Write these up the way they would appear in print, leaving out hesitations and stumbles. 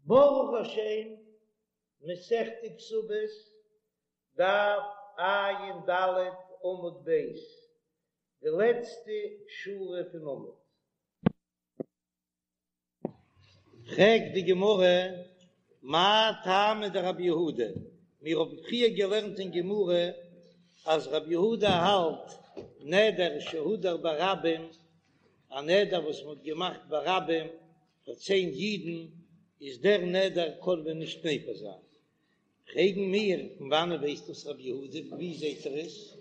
ברוך השם, מסכת כתובות, דף ע"ד עמוד ב', די לעצטע שורה פון עמוד. פרעגט די גמרא, מאי טעמא דרבי יהודה, מיר האבן פריער געלערנט אין גמרא אז רבי יהודה האלט נדר שהודר ברבים, א נדר וואס מען האט געמאכט ברבים פאר צען אידן, איז דער נדר קען מען נישט מפר זיין. פרעגן מיר, פון וואנען ווייסט דאס רבי יהודה, ווי זעט ער עס?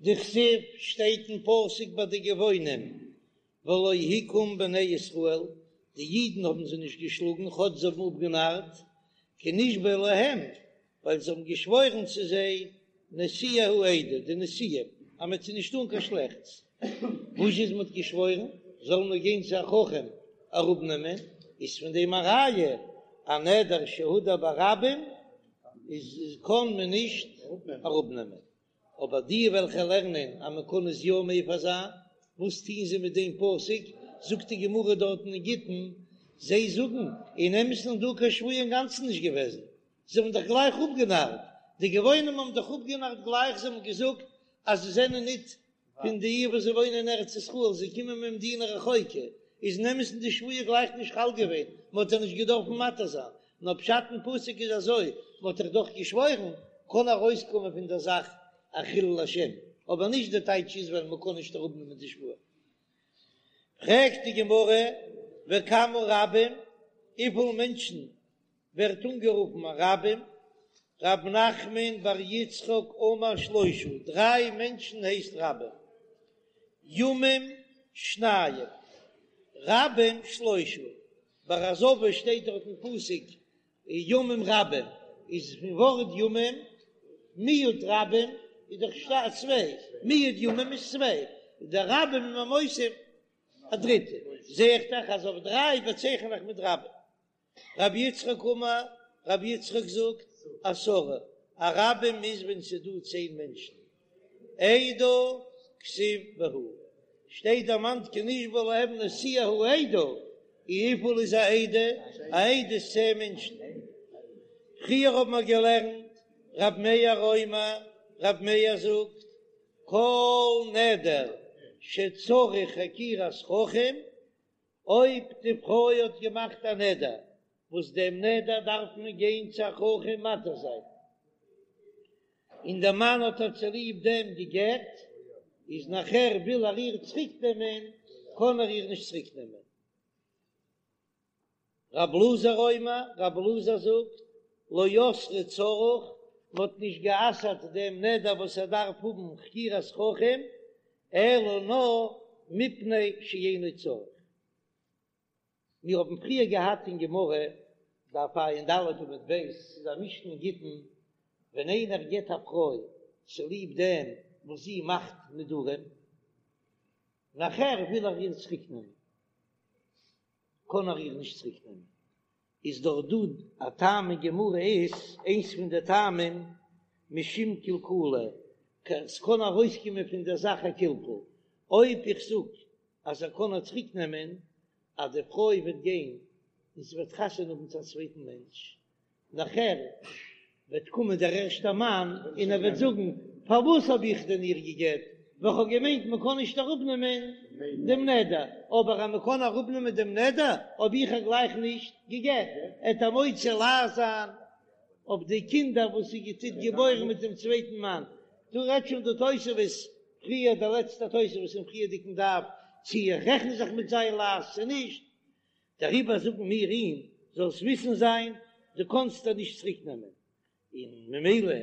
דכתיב שטייט אין פסוק ביי די גבעונים, ולא הכום בני ישראל, די אידן האבן זיי נישט געשלאגן כאטש זיי האבן אפגענארט, כי נשבעו להם, ווייל זיי האבן געשוואוירן צו זיי, נשיאי העדה, די נשיאים, אז מען וועט זיי נישט טאן קיין שלעכטס. וואס איז מען האט געשוואוירן, זאלן מיר גיין צו א חכם אראפנעמען, איז פון דעם א ראיה, א נדר שהודר ברבים איז קען מען נישט אראפנעמען. אבער די וועלכע לערנען אז מען קען עס יא מפר זיין, וואס טוהן זיי מיט דעם פסוק? זאגט די גמרא דארטן אין גיטין, זיי זאגן, אין אמת'ן איז דא קיין שבועה אינגאנצן נישט געוועזן, זיי האבן דאך גלייך אפגענארט, די גבעונים האבן דאך אפגענארט גלייך, זיי האבן געזאגט אז זיי זענען ניט פון די וואס זיי וואוינען אין ארץ ישראל, זיי קומען ממדינה רחוקה, איז אין אמת'ן די שבועה גלייך נישט חל געווען, מען האט זיי נישט געדארפן מתיר זיין, נאר פשט אין פסוק איז אזוי, מען האט דאך דאך געשוואוירן, קען ארויסקומען פון דער זאך א חילול השם, אבער נישט די טייטש איז ווייל מען קען נישט אראפנעמען די שבועה. פרעגט די גמרא, וכמה רבים, וויפיל מענטשן ווערט אנגערופן א רבים, רב נחמן בר יצחק אמר שלושה, דריי מענטשן הייסט רבים, ימים שניים, רבים שלושה, ביי א זבה שטייט דארט אין פסוק ימים רבים, איז פון ווארט ימים, מיעוט רבים איז דאך צוויי, מיעוט ימים איז צוויי, די רבים איז מען מוסיף א דריטע, זע איך דאך אז אויף דריי באצייכן איך מיט רבים. רבי יצחק אמר, רבי יצחק זאגט, עשרה, א רבים איז ווען ס'איז דא צען מענטשן. עדה כתיב בהו, שטייט דערמאנט כי נשבעו להם נשיאי העדה, און וויפיל איז א עדה? א עדה איז צען מענטשן. פריער האבן מיר געלערנט, רב מאיר אומר, רב מאיר זאגט, כל נדר שצריך חקירת חכם, אויב די פרוי האט געמאכט א נדר, וואס דעם נדר דארף מען גיין צו א חכם מתיר זיין, און דער מאן האט איר צוליב דעם גע'גט, איז נאכער וויל ער איר צוריק נעמען, קען ער איר נישט צוריק נעמען. רב אלעזר אומר, רב אלעזר זאגט, לא אסרו צריך, מען האט נישט גע'אסר'ט דעם נדר וואס ער דארף האבן חקירת חכם, אלא נאר מפני שאינו צריך. מיר האבן פריער געהאט אין גמרא, דף ע"ד עמוד ב', ס'איז א משנה אין גיטין, ווען איינער גט א פרוי צוליב דעם וואס זי מאכט נדרים, נאכער וויל ער איר צוריק נעמען, קען ער איר נישט צוריק נעמען, איז דאך דא א טעם אין גמרא איז איינס פון די טעמים משום קלקולא, ס'קען ארויסקומען פון דער זאך א קלקול, אויב איך זאג אז ער קען איר צוריק נעמען, אז די פרוי וועט גיין און זי וועט חתונה האבן צו א צווייטן מענטש, נאכער וועט קומען דער ערשטער מאן און ער וועט זאגן, פארוואס האב איך דען איר גע'גט, ווייל כ'האב געמיינט מען קען נישט אראפנעמען דעם נדר, אבער אז מען קען אראפנעמען דעם נדר האב איך איר גלייך נישט גע'גט, עט ער מוציא לעז זיין אויף די קינדער וואס זי טוט געבוירן מיט דעם צווייטן מאן. דא רעדט שוין די תוספות פריער, דער לעצטער תוספות אין פריערדיגן דף, צי איך רעכן זיך מיט זיין לעז צו נישט, דעריבער זאגן מיר אים, זאלסט וויסן זיין, דו קאנסט איר נישט צוריק נעמען, און ממילא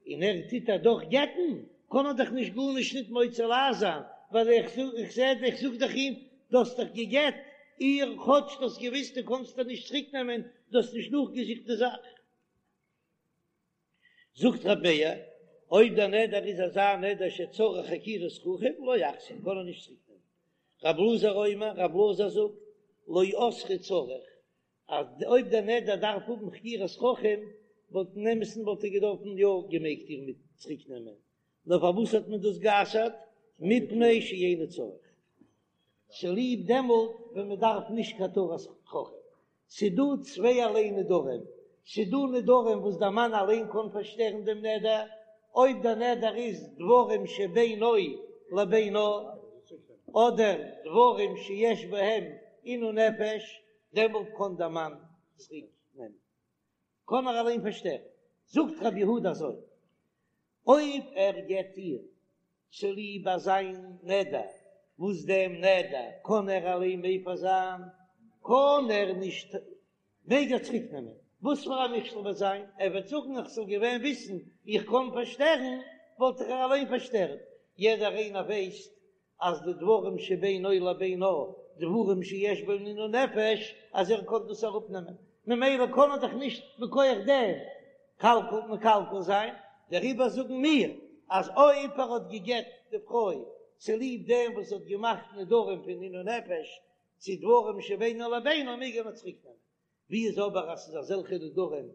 און ער טוט איר דאך גט'ן, קען ער דאך נישט גארנישט ניט מוציא לעז זיין, ווייל איך זאג, איך זע, איך זאג דאך אים, דו האסט דאך גע'גט איר, כאטש דו האסט געוויסט דו קאנסט איר נישט צוריק נעמען, דו האסט נישט נאכגעזוכט די זאך. זאגט רבי מאיר, אויב דער נדר איז אזא נדר שצריך חקירת חכם, לא יחזיר, קען ער נישט צוריק נעמען. רב אלעזר אומר, רב אלעזר זאגט, לא אסרו צריך, אז אויב דער נדר דארף האבן חקירת חכם, וואלט אין אמת'ן וואלט ער געדארפן יא געמעגט איר מיט צוריק נעמען, נאר פארוואס האט מען דאס גע'אסר'ט? מפני שאינו צריך, צוליב דעמאלט ווען מען דארף נישט קיין התרת חכם. ס'דא צווייערליי נדרים, ס'דא נדרים וואס דער מאן אליין קען פארשטערן דעם נדר, אויב דער נדר איז דברים שבינו לבינה, אדער דברים שיש בהם עינוי נפש, דעמאלט קען דער מאן צוריק נעמען, קען ער אליין פארשטערן. זאגט רבי יהודה אזוי, אויב ער גט איר צוליב אזא נדר, וואס דעם נדר קען ער אליין מפר זיין, קען ער נישט, מעג ער צוריק נעמען, וואס פאר א מכשול וועט זיין, ער וועט זאגן איך זאל געווען וויסן איך קען פארשטערן, וואלט איך איר אליין פארשטערט, יעדער איינער ווייסט אז די דברים שבינו לבינה, דברים שיש בהם עינוי נפש, אז ער קען דאס אראפנעמען, ממילא קען ער דאך נישט מכח דעם קלקול מקלקל זיין, דעריבער זאגן מיר אז אויב ער האט גע'גט די פרוי צוליב דעם וואס זי האט געמאכט נדרים פון עינוי נפש צו דברים שבינו לבינה מעג ער איר צוריקנעמען, ווי איז אבער אז ס'איז אזעלכע נדרים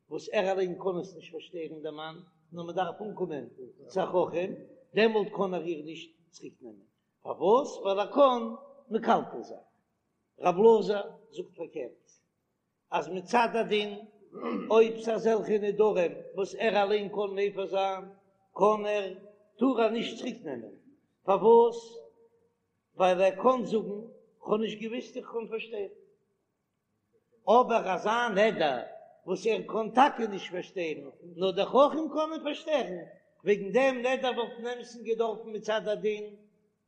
וואס ער אליין קען עס נישט פארשטערן דער מאן, נאר מען דארף אנקומען צו א חכם, דעמאלט קען ער איר נישט צוריק נעמען, פארוואס? ווייל ער קען מקלקל זיין. רב אלעזר זאגט פארקערט, אז מצד הדין אויב ס'איז אזעלכע נדרים וואס ער אליין קען מפר זיין, קען ער, טאר ער נישט צוריק נעמען, פארוואס? ווייל ער קען זאגן, כ'האב נישט געוויסט איך קען פארשטערן. אבער אזא נדר וואס ער קען טאקע נישט פארשטערן, נאר דער חכם קען אים פארשטערן, וועגן דעם נדר וואלט אין אמת'ן געדארפן מצד הדין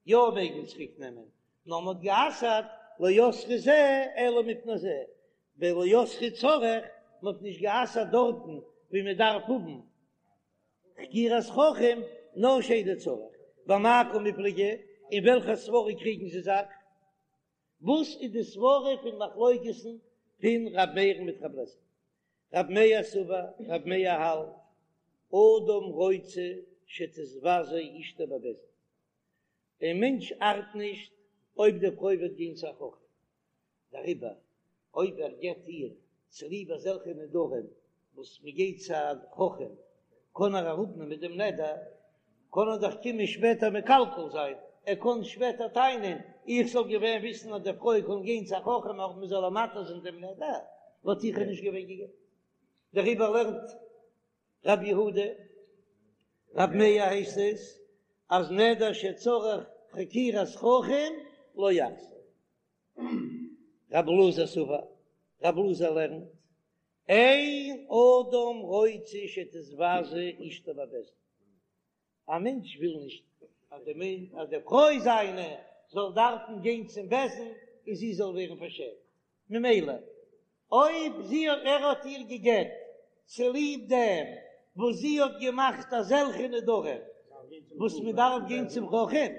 יא מעגן צוריק נעמען, נאר מ'האט גע'אסר'ט לא אסרו זה אלא מפני זה, ולא אסרו צריך, מ'האט נישט גע'אסר'ט דארטן ווי מ'דארף האבן חקירת חכם, נאר שאינו צריך. במאי קמיפלגי, אין וועלכע סברא קריגן זיי זיך? וואס איז די סברא פון מחלוקת'ן פון ר' מאיר'ן מיט ר' אלעזר? ר' מאיר סבר, ר' מאיר האלט, אדם רוצה שתתבזה אשתו בבית דין, דעם מענטש ארט נישט אויב די פרוי וועט גיין צו א חכם, דעריבער אויב ער גט איר צוליב אזעלכע נדרים וואס מען גייט צו א חכם קען ער אראפנעמען דעם נדר, קען ער דאך קומען שפעטער מקלקל זיין, ער קען שפעטער טענה'ן איך זאל געווען וויסן אז די פרוי קען גיין צו א חכם אויב מען זאל איר מתיר זיין דעם נדר, וואלט איך איר נישט געווען גע'גט. דעריבער לערנט רבי יהודה, רבי מאיר הייסט עס, אז נדר שצריך חקירת חכם לא יחזיר. רבי אלעזר סבר, רבי אלעזר לערנט, אין אדם רוצה שתתבזה אשתו בבית דין, א מענטש וויל נישט אז די מענ אז די פרוי זיינע זאל דארפן גיין צום בית דין און זי זאל ווערן פארשעמט, ממילא אויב זי האט ער האט איר גע'גט צוליב דעם וואס זי האט געמאכט אזעלכע נדרים וואס מען דארף גיין צום חכם,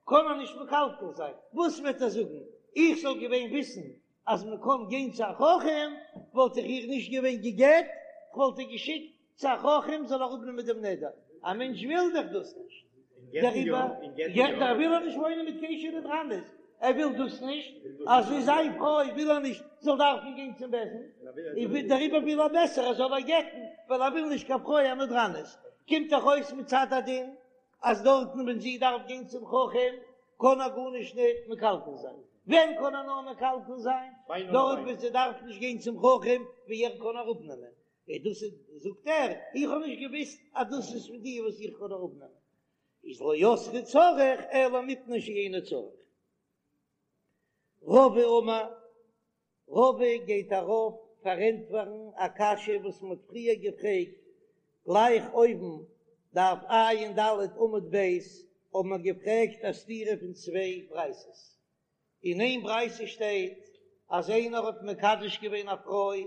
קען ער נישט מקלקל זיין, וואס וועט ער זאגן, איך זאל געווען וויסן אז מען קען גיין צו א חכם וואלט איך איר נישט געווען גע'גט, כ'וואלט איר געשיקט צו א חכם זאל אראפנעמען דעם נדר, א מענטש וויל דאך דאס נישט, דעריבער דער וויל ער נישט וואוינען מיט קיין אשה נדרנית, ער וויל דאס נישט, אז זי איז זיין פרוי וויל ער נישט זאל דארפן גיין צום בית דין, דעריבער וויל ער בעסער ער זאל איר גט'ן, ווייל ער וויל נישט קיין פרוי א נדרנית, קומט דאך אויס מצד הדין אז דארטן ווען זי דארף גיין צום חכם קען ער גארנישט נישט מקלקל זיין, ווען קען ער נאר מקלקל זיין? דארט ווען זי דארף נישט גיין צום חכם ווי ער קען אראפנעמען, און דאס איז זאגט ער, איך האב נישט געוויסט אז דאס איז פון די וואס איך קען אראפנעמען, איז לא אסרו צריך אלא מפני שאינו צריך. רבא אמר, רבא גייט ארויף פארענטפערן א קשיא וואס מען האט פריער געפרעגט גלייך אויבן, דף ע"ד עמוד ב', האבן מיר געפרעגט א סתירה פון צוויי ברייתות. אין איין ברייתא שטייט אז איינער האט מקדש געווען א פרוי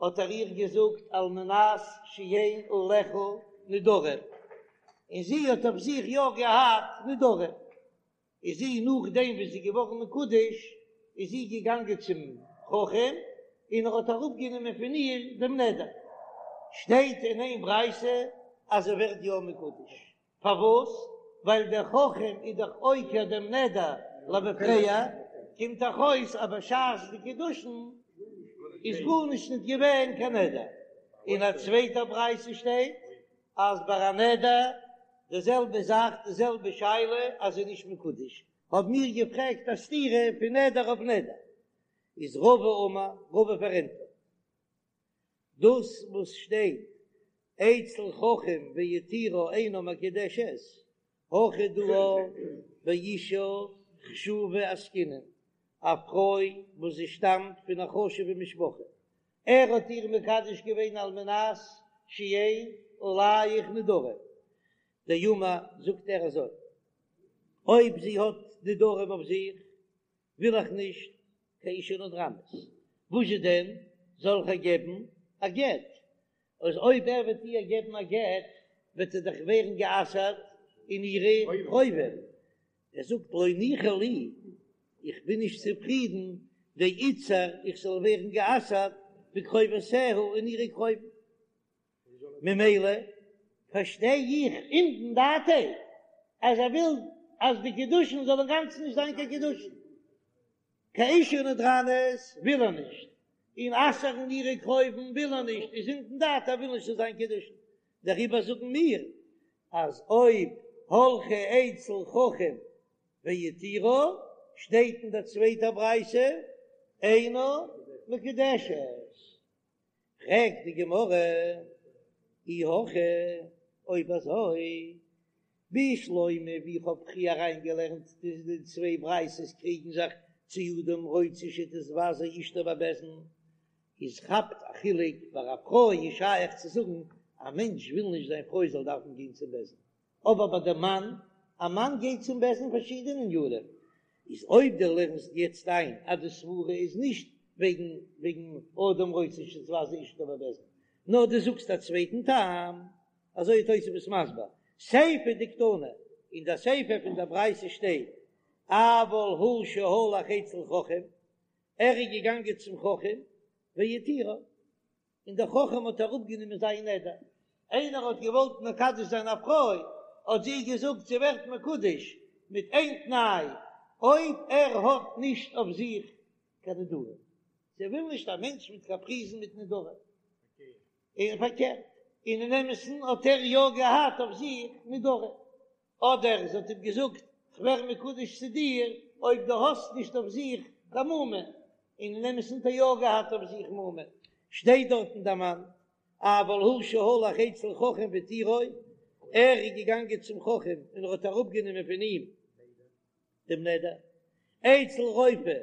האט ער איר געזאגט על מנת שאין עליך נדרים, און זי האט אויף זיך יא געהאט נדרים. איז זי נאכדעם וואס זי איז געווארן מקודש איז זי געגאנגען צום חכם און ער האט אראפגענומען פון איר דעם נדר, שטייט אין איין ברייתא אז זי ווערט יא מקודש, פארוואס? ווייל דער חכם איז דאך עוקר דעם נדר למפרע, קומט דאך אויס אז בשעת די קידושין איז גארנישט נישט געווען קיין נדר, אין א צווייטע ברייתא שטייט אז ביי א נדר די זעלבע זאך די זעלבע שאלה אז זי איז נישט מקודש, האבן מיר געפרעגט א סתירה פון נדר אויף נדר. איז רבא אמר, רבא פארענטפערט דאס וואס שטייט אצל חכם והתירה אינה מקודשת, הכא דא באשה חשובה עסקינן, א פרוי וואס זי שטאמט פון א חשובע משפחה, ער האט איר מקדש געווען על מנת שאין עליך נדרים, דאמר זאגט ער אזוי, אויב זי האט נדרים אויף זיך וויל איך נישט קיין אשה נדרנית, וואזשע דען זאל איך איר געבן א גט? אז אויב ער וועט איר געבן א גט וועט זי דאך ווערן גע'אסר'ט אין אירע קרובים, ער זאגט לא ניחא לי, איך בין נישט צופרידן דאיתסר איך זאל ווערן גע'אסר'ט בקרובותיה אין אירע קרובים. ממילא פארשטיי איך אומדן דעתיה אז ער וויל אז די קידושין זאל אינגאנצן נישט זיין קיין קידושין, קיין אשה נדרנית וויל ער נישט, און אסר'ן אירע קרובים וויל ער נישט, איז אומדן דעתיה ער וויל נישט ס'זאל זיין קידושין, דעריבער זאגן מיר אז אויב הלכה אצל חכם והתירה שטייט אין דער צווייטער ברייתא אינה מקודשת. פרעגט די גמרא, אי הכי, אויב אזוי, בשלמא ווי איך האב פריער אריינגעלערנט די צוויי ברייתות קריגן זיך צו אדם רוצה שתתבזה אשתו בבית דין, איז כאפט א חילוק, ביי א פרוי איז שייך צו זאגן א מענטש וויל נישט זיין פרוי זאל דארפן גיין צום בית דין, אבער ביי די מאן, א מאן גייט צום בית דין פארשידענע ענינים, איז אויב דו לערנסט יעצט איין אז די סברה איז נישט וועגן וועגן אדם רוצה שתתבזה אשתו בבית דין, נאר דו זאגסט א צווייטן טעם, אזוי איז תוספות מסביר, סיפא דקתני, אין די סיפא פון די ברייתא שטייט, אבל הוא שהלך אצל חכם, ער איז געגאנגען צום חכם, והתירה. און דער חכם האט אראפגענומען זיין נדר, איינער האט געוואלט מקדש זיין א פרוי, האט זי געזאגט זי ווערט מקודש מיט איין תנאי, אויב ער האט נישט אויף זיך קיין נדרים, זי וויל נישט א מענטש מיט קאפריזן מיט נדרים, און פארקערט, און אין אמת'ן האט ער יא געהאט אויף זיך נדרים, אדער זי האט אים געזאגט, כ'ווער מקודש צו דיר אויב דו האסט נישט אויף זיך קיין מומין, און אין אמת'ן האט ער יא געהאט אויף זיך מומין, שטייט דארטן דערמאנט, אבל הוא שהלך אצל חכם והתירו, ער איז געגאנגען צום חכם און ער האט אראפגענומען פון אים דעם נדר, אצל רופא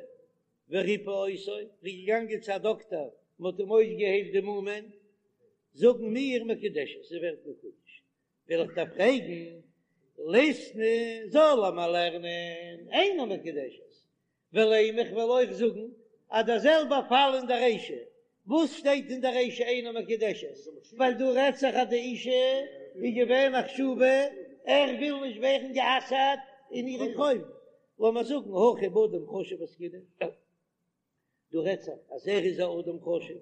וריפא אותו, ער איז געגאנגען צו א דאקטער, מען האט אים אויסגעהיילט די מומין, זאגן מיר מקודשת, זי ווערט מקודש, וויל איך דיר פרעגן, ליתני זאל ער מיר לערנען אינה מקודשת, ולימא איך וועל אויך זאגן אז דער זעלבער פאל אין דער רישא, וואס שטייט אין דער רישא אינה מקודשת, ווייל דא רעדט זיך אז די אישה איז געווען א חשובה, ער וויל נישט ווערן גע'אסר'ט אין אירע קרובים, לאמיר זאגן הכא באדם חשוב עסקינן. דא רעדט זיך אז ער איז א אדם חשוב,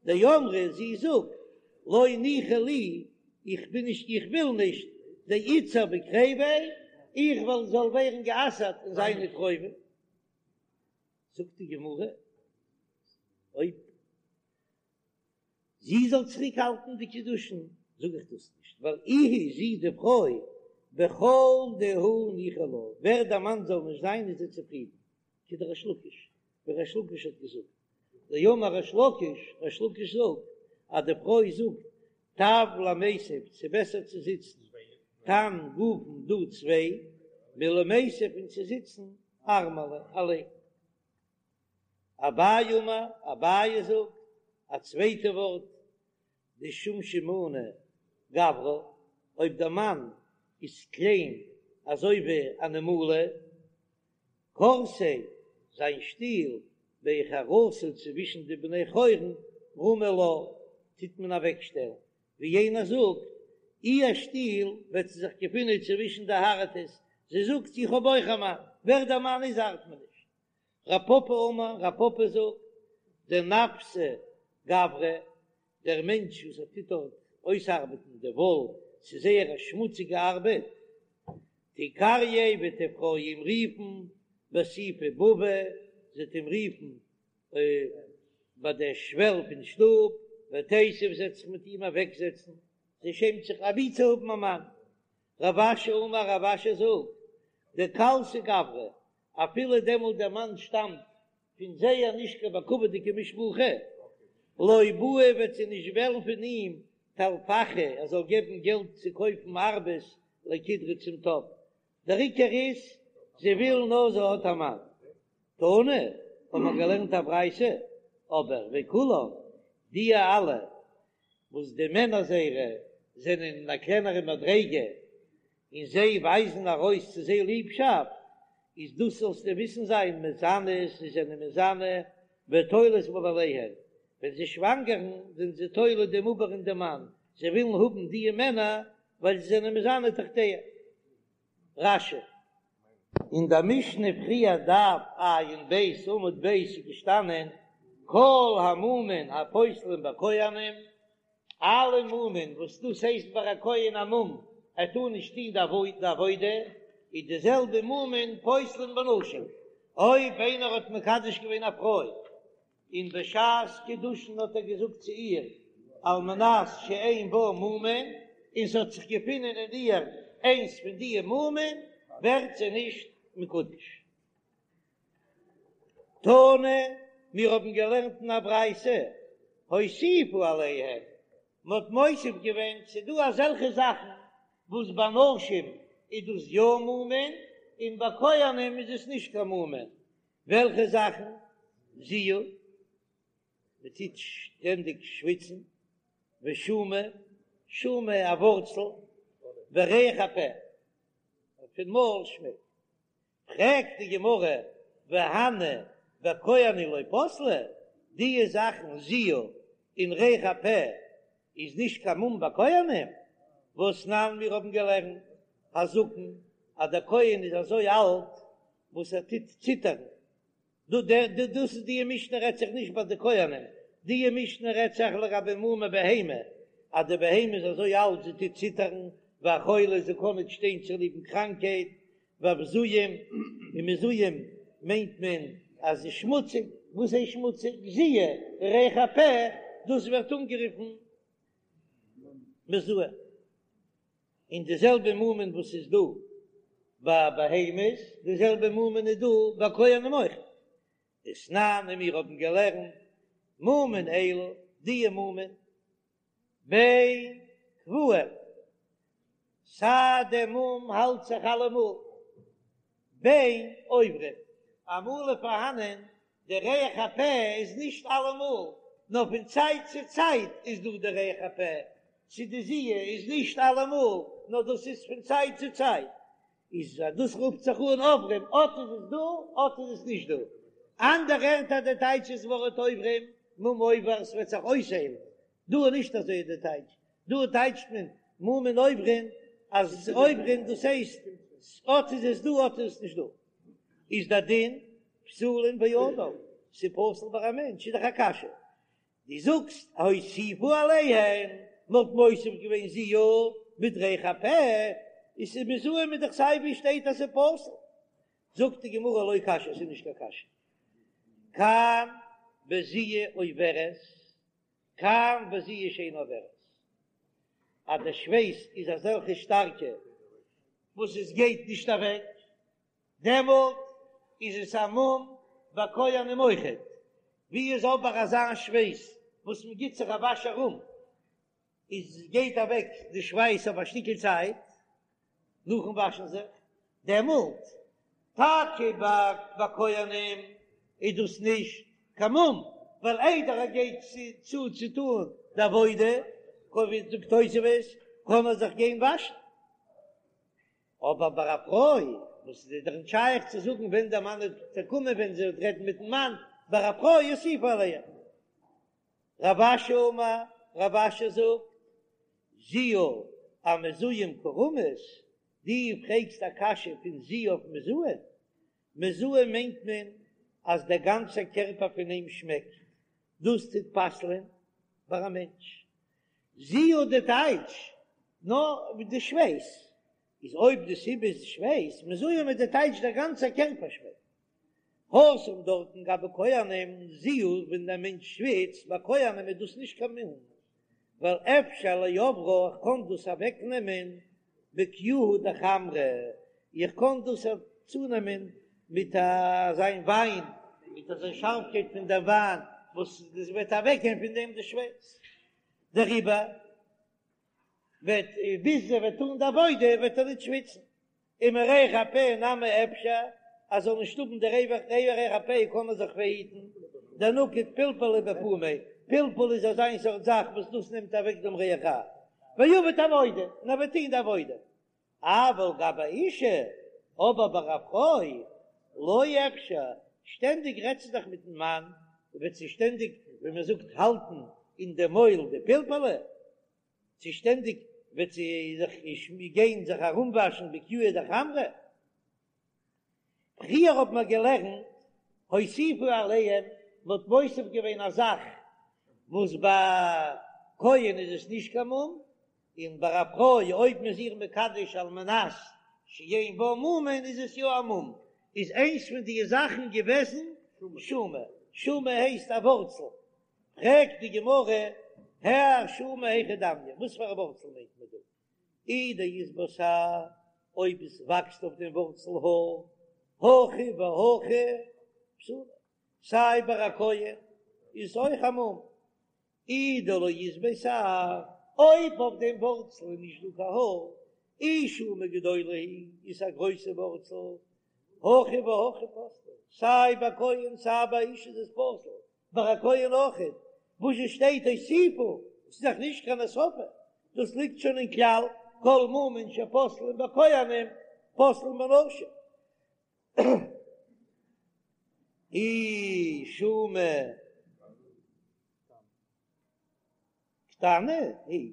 דאמרה זי זאגט לא ניחא לי, איך בין נישט איך וויל נישט דאיתסר בקריביה, איך וויל זאל ווערן גע'אסר'ט אין זיינע קרובים, זאגט די גמרא אויב זי זאל צוריק האלטן די קידושין זאג איך דאס נישט, ווייל איהי זי די פרוי בכל דהו ניחא לה, ווער דער מאן זאל נישט זיין איז זי צופרידן, כדריש לקיש, ווי ריש לקיש האט געזאגט, דאמר ריש לקיש, ריש לקיש זאגט אז די פרוי זאגט טב למיתב, ס'איז בעסער צו זיצן תן גופין דא צוויי, מלמיתב פון צו זיצן ארמלא אליין. אביי אמר, אביי זאגט א צווייטע ווארט, דשומשמנא גברא, אויב דער מאן איז קליין אזוי ווי א נמלה, כורסיה, זיין שטול, בי חרתא צווישן די בני חורין, רמי לה, טוט מען אוועקשטעלן, ווי יענער זאגט, איר שטול וועט זי זיך געפינען צווישן די הארטעס, זי זאגט איך האב אויך א מאן, ווער דער מאן איז ארט מיר נישט. רב פפא אמר, רב פפא זאגט, דנפסי גברא, דער מענטש וואס ער טוט דארט אויסארבעטן די וואל, ס'איז זייער א שמוציגע ארבעט, תיקרייה וועט די פרוי אים רופן בסיפי בבא, זי וועט אים רופן ביי דער שוועל פון שטוב, ותיתיב זי וועט זיך מיט אים אוועקזעצן, זי שעמט זיך אבי צו האבן א מאן. רב אשי אמר, רב אשי זאגט, דקלסי גברא, אפילו דעמאלט דער מאן שטאמט. פון זייער נישט קיין בכבוד'יגע משפחה, לא בעיא וועט זי נישט וועלן פון אים טלפחי ער זאל געבן געלט צו קויפן ארבעס לקידרא צום טאפ, דער עיקר איז זי וויל נאר זי האט א מאן. תנא, האט מען געלערנט א ברייתא, אבער וכולן, די אלע וואס די מענער זייערע זענען אין א קלענערע מדריגה און זיי ווייזן ארויס צו זיי ליבשאפט, איז דאס זאלסטו וויסן זיין מזנות, זיי זענען מזנה ותולות בבעליהן, ווען זיי שוואנגערן זענען זיי תולה דעם עובר אין דעם מאן, זיי ווילן האבן דיע מענער ווייל זיי זענען מזנה תחתיהם. רש"י. אין דער משנה פריער דף ע"ב עמוד ב' איז געשטאנען כל המומין הפוסלין בכהנים, אלע מומין וואס דאס הייסט ביי א כהן א מום ער טאר נישט טון די עבודה, איז די זעלבע מומין פוסלין בנשים, אויב איינער האט מקדש געווען א פרוי און בשעת קידושין האט ער געזאגט צו איר על מנת שאין בה מומין, און ס'האט זיך געפונען אין איר איינס פון די מומין, ווערט זי נישט מקודש. תנא, מיר האבן געלערנט אין א ברייתא, הוסיפו עליהם, מ'האט מוסיף געווען, ס'דא אזעלכע זאכן וואס ביי נשים איז דאס יא מומין, און ביי כהנים איז עס נישט קיין מומין, וועלכע זאכן? זיעה, מען טוט שטענדיג שוויצן, ושומא, שומא א ווארצל, וריח הפה, פון מויל שמעקט. פרעגט די גמרא, והני בכהנים לא פסלי, דיע זאכן זיעה און ריח הפה איז נישט קיין מום ביי כהנים? והתנן מיר האבן געלערנט הזקן אז דער כהן איז אזוי אלט וואס ער טוט ציטערן, דא דער דא דאס איז דיע משנה רעדט זיך נישט ביי די כהנים, דיע משנה רעדט זיך לגבי מומי בהמה, אז די בהמה איז אזוי אלט זי טוט ציטערן, והחולה זי קען ניט שטיין צוליבן קראנקהייט, והבזויים, און מזוהם מיינט מען אז זי שמוציג, וואס הייסט שמוציג? זיעה, ריח הפה, דאס ווערט אנגערופן מזוהם. און די זעלבע מומין וואס איז דא ביי בהמות, די זעלבע מומין איז דא ביי כהנים אויך. ותנן און מיר האבן געלערנט מומין אלו, דיע מומין, בין קבועים, סיי דער מום האלט זיך אלעמאל, בין עוברים, אמאל איז פארהאנען די ריח הפה איז נישט אלעמאל, נאר פון צייט צו צייט איז דא די ריח הפה, צו די זיעה איז נישט אלעמאל, נאר דאס איז פון צייט צו צייט, איז אז דאס רופט זיך אן עוברים, אט איז עס דא, אט איז עס נישט דא. אנדערע ערטער די טייטש איז ווארט עוברים, מום עובר, ס'וועט זיך אויסהיילן, דא איז נישט אזוי די טייטש, דא טייטשט מען מומין עוברים אז עוברים דאס הייסט אט איז עס דא אט איז עס נישט דא, איז די דין פסולין באדם, ס'פסול ביי א מענטש איז דאך א קשיא, דו זאגסט הוסיפו עליהם, מ'האט מוסיף געווען זיעה מיט ריח הפה, איז ס'איז מזוהם איז דאך סיי ווי שטייט אז ס'איז פסול, זאגט די גמרא לא קשיא ס'איז נישט קיין קשיא, כאן בזיעה עוברת כאן בזיעה שאינה עוברת, אז די שווייס איז אזעלכע שטארקע וואס עס גייט נישט אוועק, דעמאלט איז עס א מום ביי כהנים אויכעט, ווי איז אבער אזא שווייס וואס מען גיט זיך א וואש ארום איז גייט אוועק די שווייס אויף א שטיקל צייט נאכן וואשן זיך, דעמאלט טאקע ביי כהנים איז דאס נישט קיין מום, ווייל איידער ער גייט צו צו טון די עבודה, ווי זאגט תוספות, קען ער זיך גיין וואשן. אבער ביי א פרוי וואס איז דאך נישט שייך צו זאגן ווען דער מאן וועט קומען ווען זי וועט רעדן מיטן מאן, ביי א פרוי הוסיפו עליהם. רב אשי אמר, רב אשי זאגט, זיעה אמזוהם קא רמית, דו פרעגסט א קשיא פון זיעה אויף מזוהם? מזוהם מיינט מען אז דער גאנצער קערפער פון אים שמעקט, דאס טוט פסל'ען ביי א מענטש. זיעה די טייטש נאר די שווייס, איז אויב די סיבה איז שווייס, מזוהם איז די טייטש דער גאנצער קערפער שמעקט. התם דארטן גבי כהנים זיעה ווען דער מענטש שוויצט ביי כהנים איז דאס נישט קיין מום ווייל אפשר לעברה איך קען דאס אוועק נעמען בקיוהא דחמרא איך קען דאס צונעמען מיט אזיין וויין. מיט אזא שארפקייט פון דער וויין וואס עס וועט אוועקגיין פון דעם די שווייס, דעריבער וועט ביז ער וועט טון די עבודה וועט ער ניט שוויצן, ומריח הפה נמי אפשר, אז זאל נישט האבן די ריח הפה קען מען זיך פארהיטן, דנקיט פילפלא בפומיה, פלפול איז אזא סארט זאך וואס דאס נעמט אוועק דעם ריח רע, ועביד עבודה, און ער וועט טון די עבודה. אבל גבי אשה, אבער ביי א פרוי, לא אפשר, שטענדיג רעדט זי דאך מיטן מאן, וועט זי שטענדיג, ווי מען זאגט, האלטן אין די מויל די פלפלא, צו שטענדיג וועט זי זיך גיין זיך ארומוואשן בקיוהא דחמרא. פריער האט מען געלערנט הוסיפו עליהם, מען האט מוסיף געווען א זאך וואס ביי כהן איז עס נישט קיין מום, און ביי א פרוי אויב מען איז איר מקדש על מנת שאין בה מומין איז עס יא א מום, איז איינס פון די זאכן געוועזן שומא, שומא הייסט א ווארצל, פרעגט די גמרא, האי שומא היכי דמיא, וואס פאר א ווארצל מיינט מען דא? אי דאית בה שער, אויב עס וואקסט אויף דעם ווארצל האר, הכא והכא פסולה, סיי ביי א כהן איז עס אויך א מום, אי דלא אית ביה שער, אויב אויף דעם ווארצל איז נישט דא קיין האר, אי שומא גדולה היא, איז א גרויסע ווארצל, הכא והכא פסלה, סיי ביי כהן סיי ביי אשה איז עס פסול, ביי א כהן אויכעט, וואס עס שטייט הוסיפו, עס איז דאך נישט קיין הוספה, דאס ליגט שוין אין כלל, כל מומין שפוסלין בכהנים פוסלין בנשים. אי שומא קטנה היא,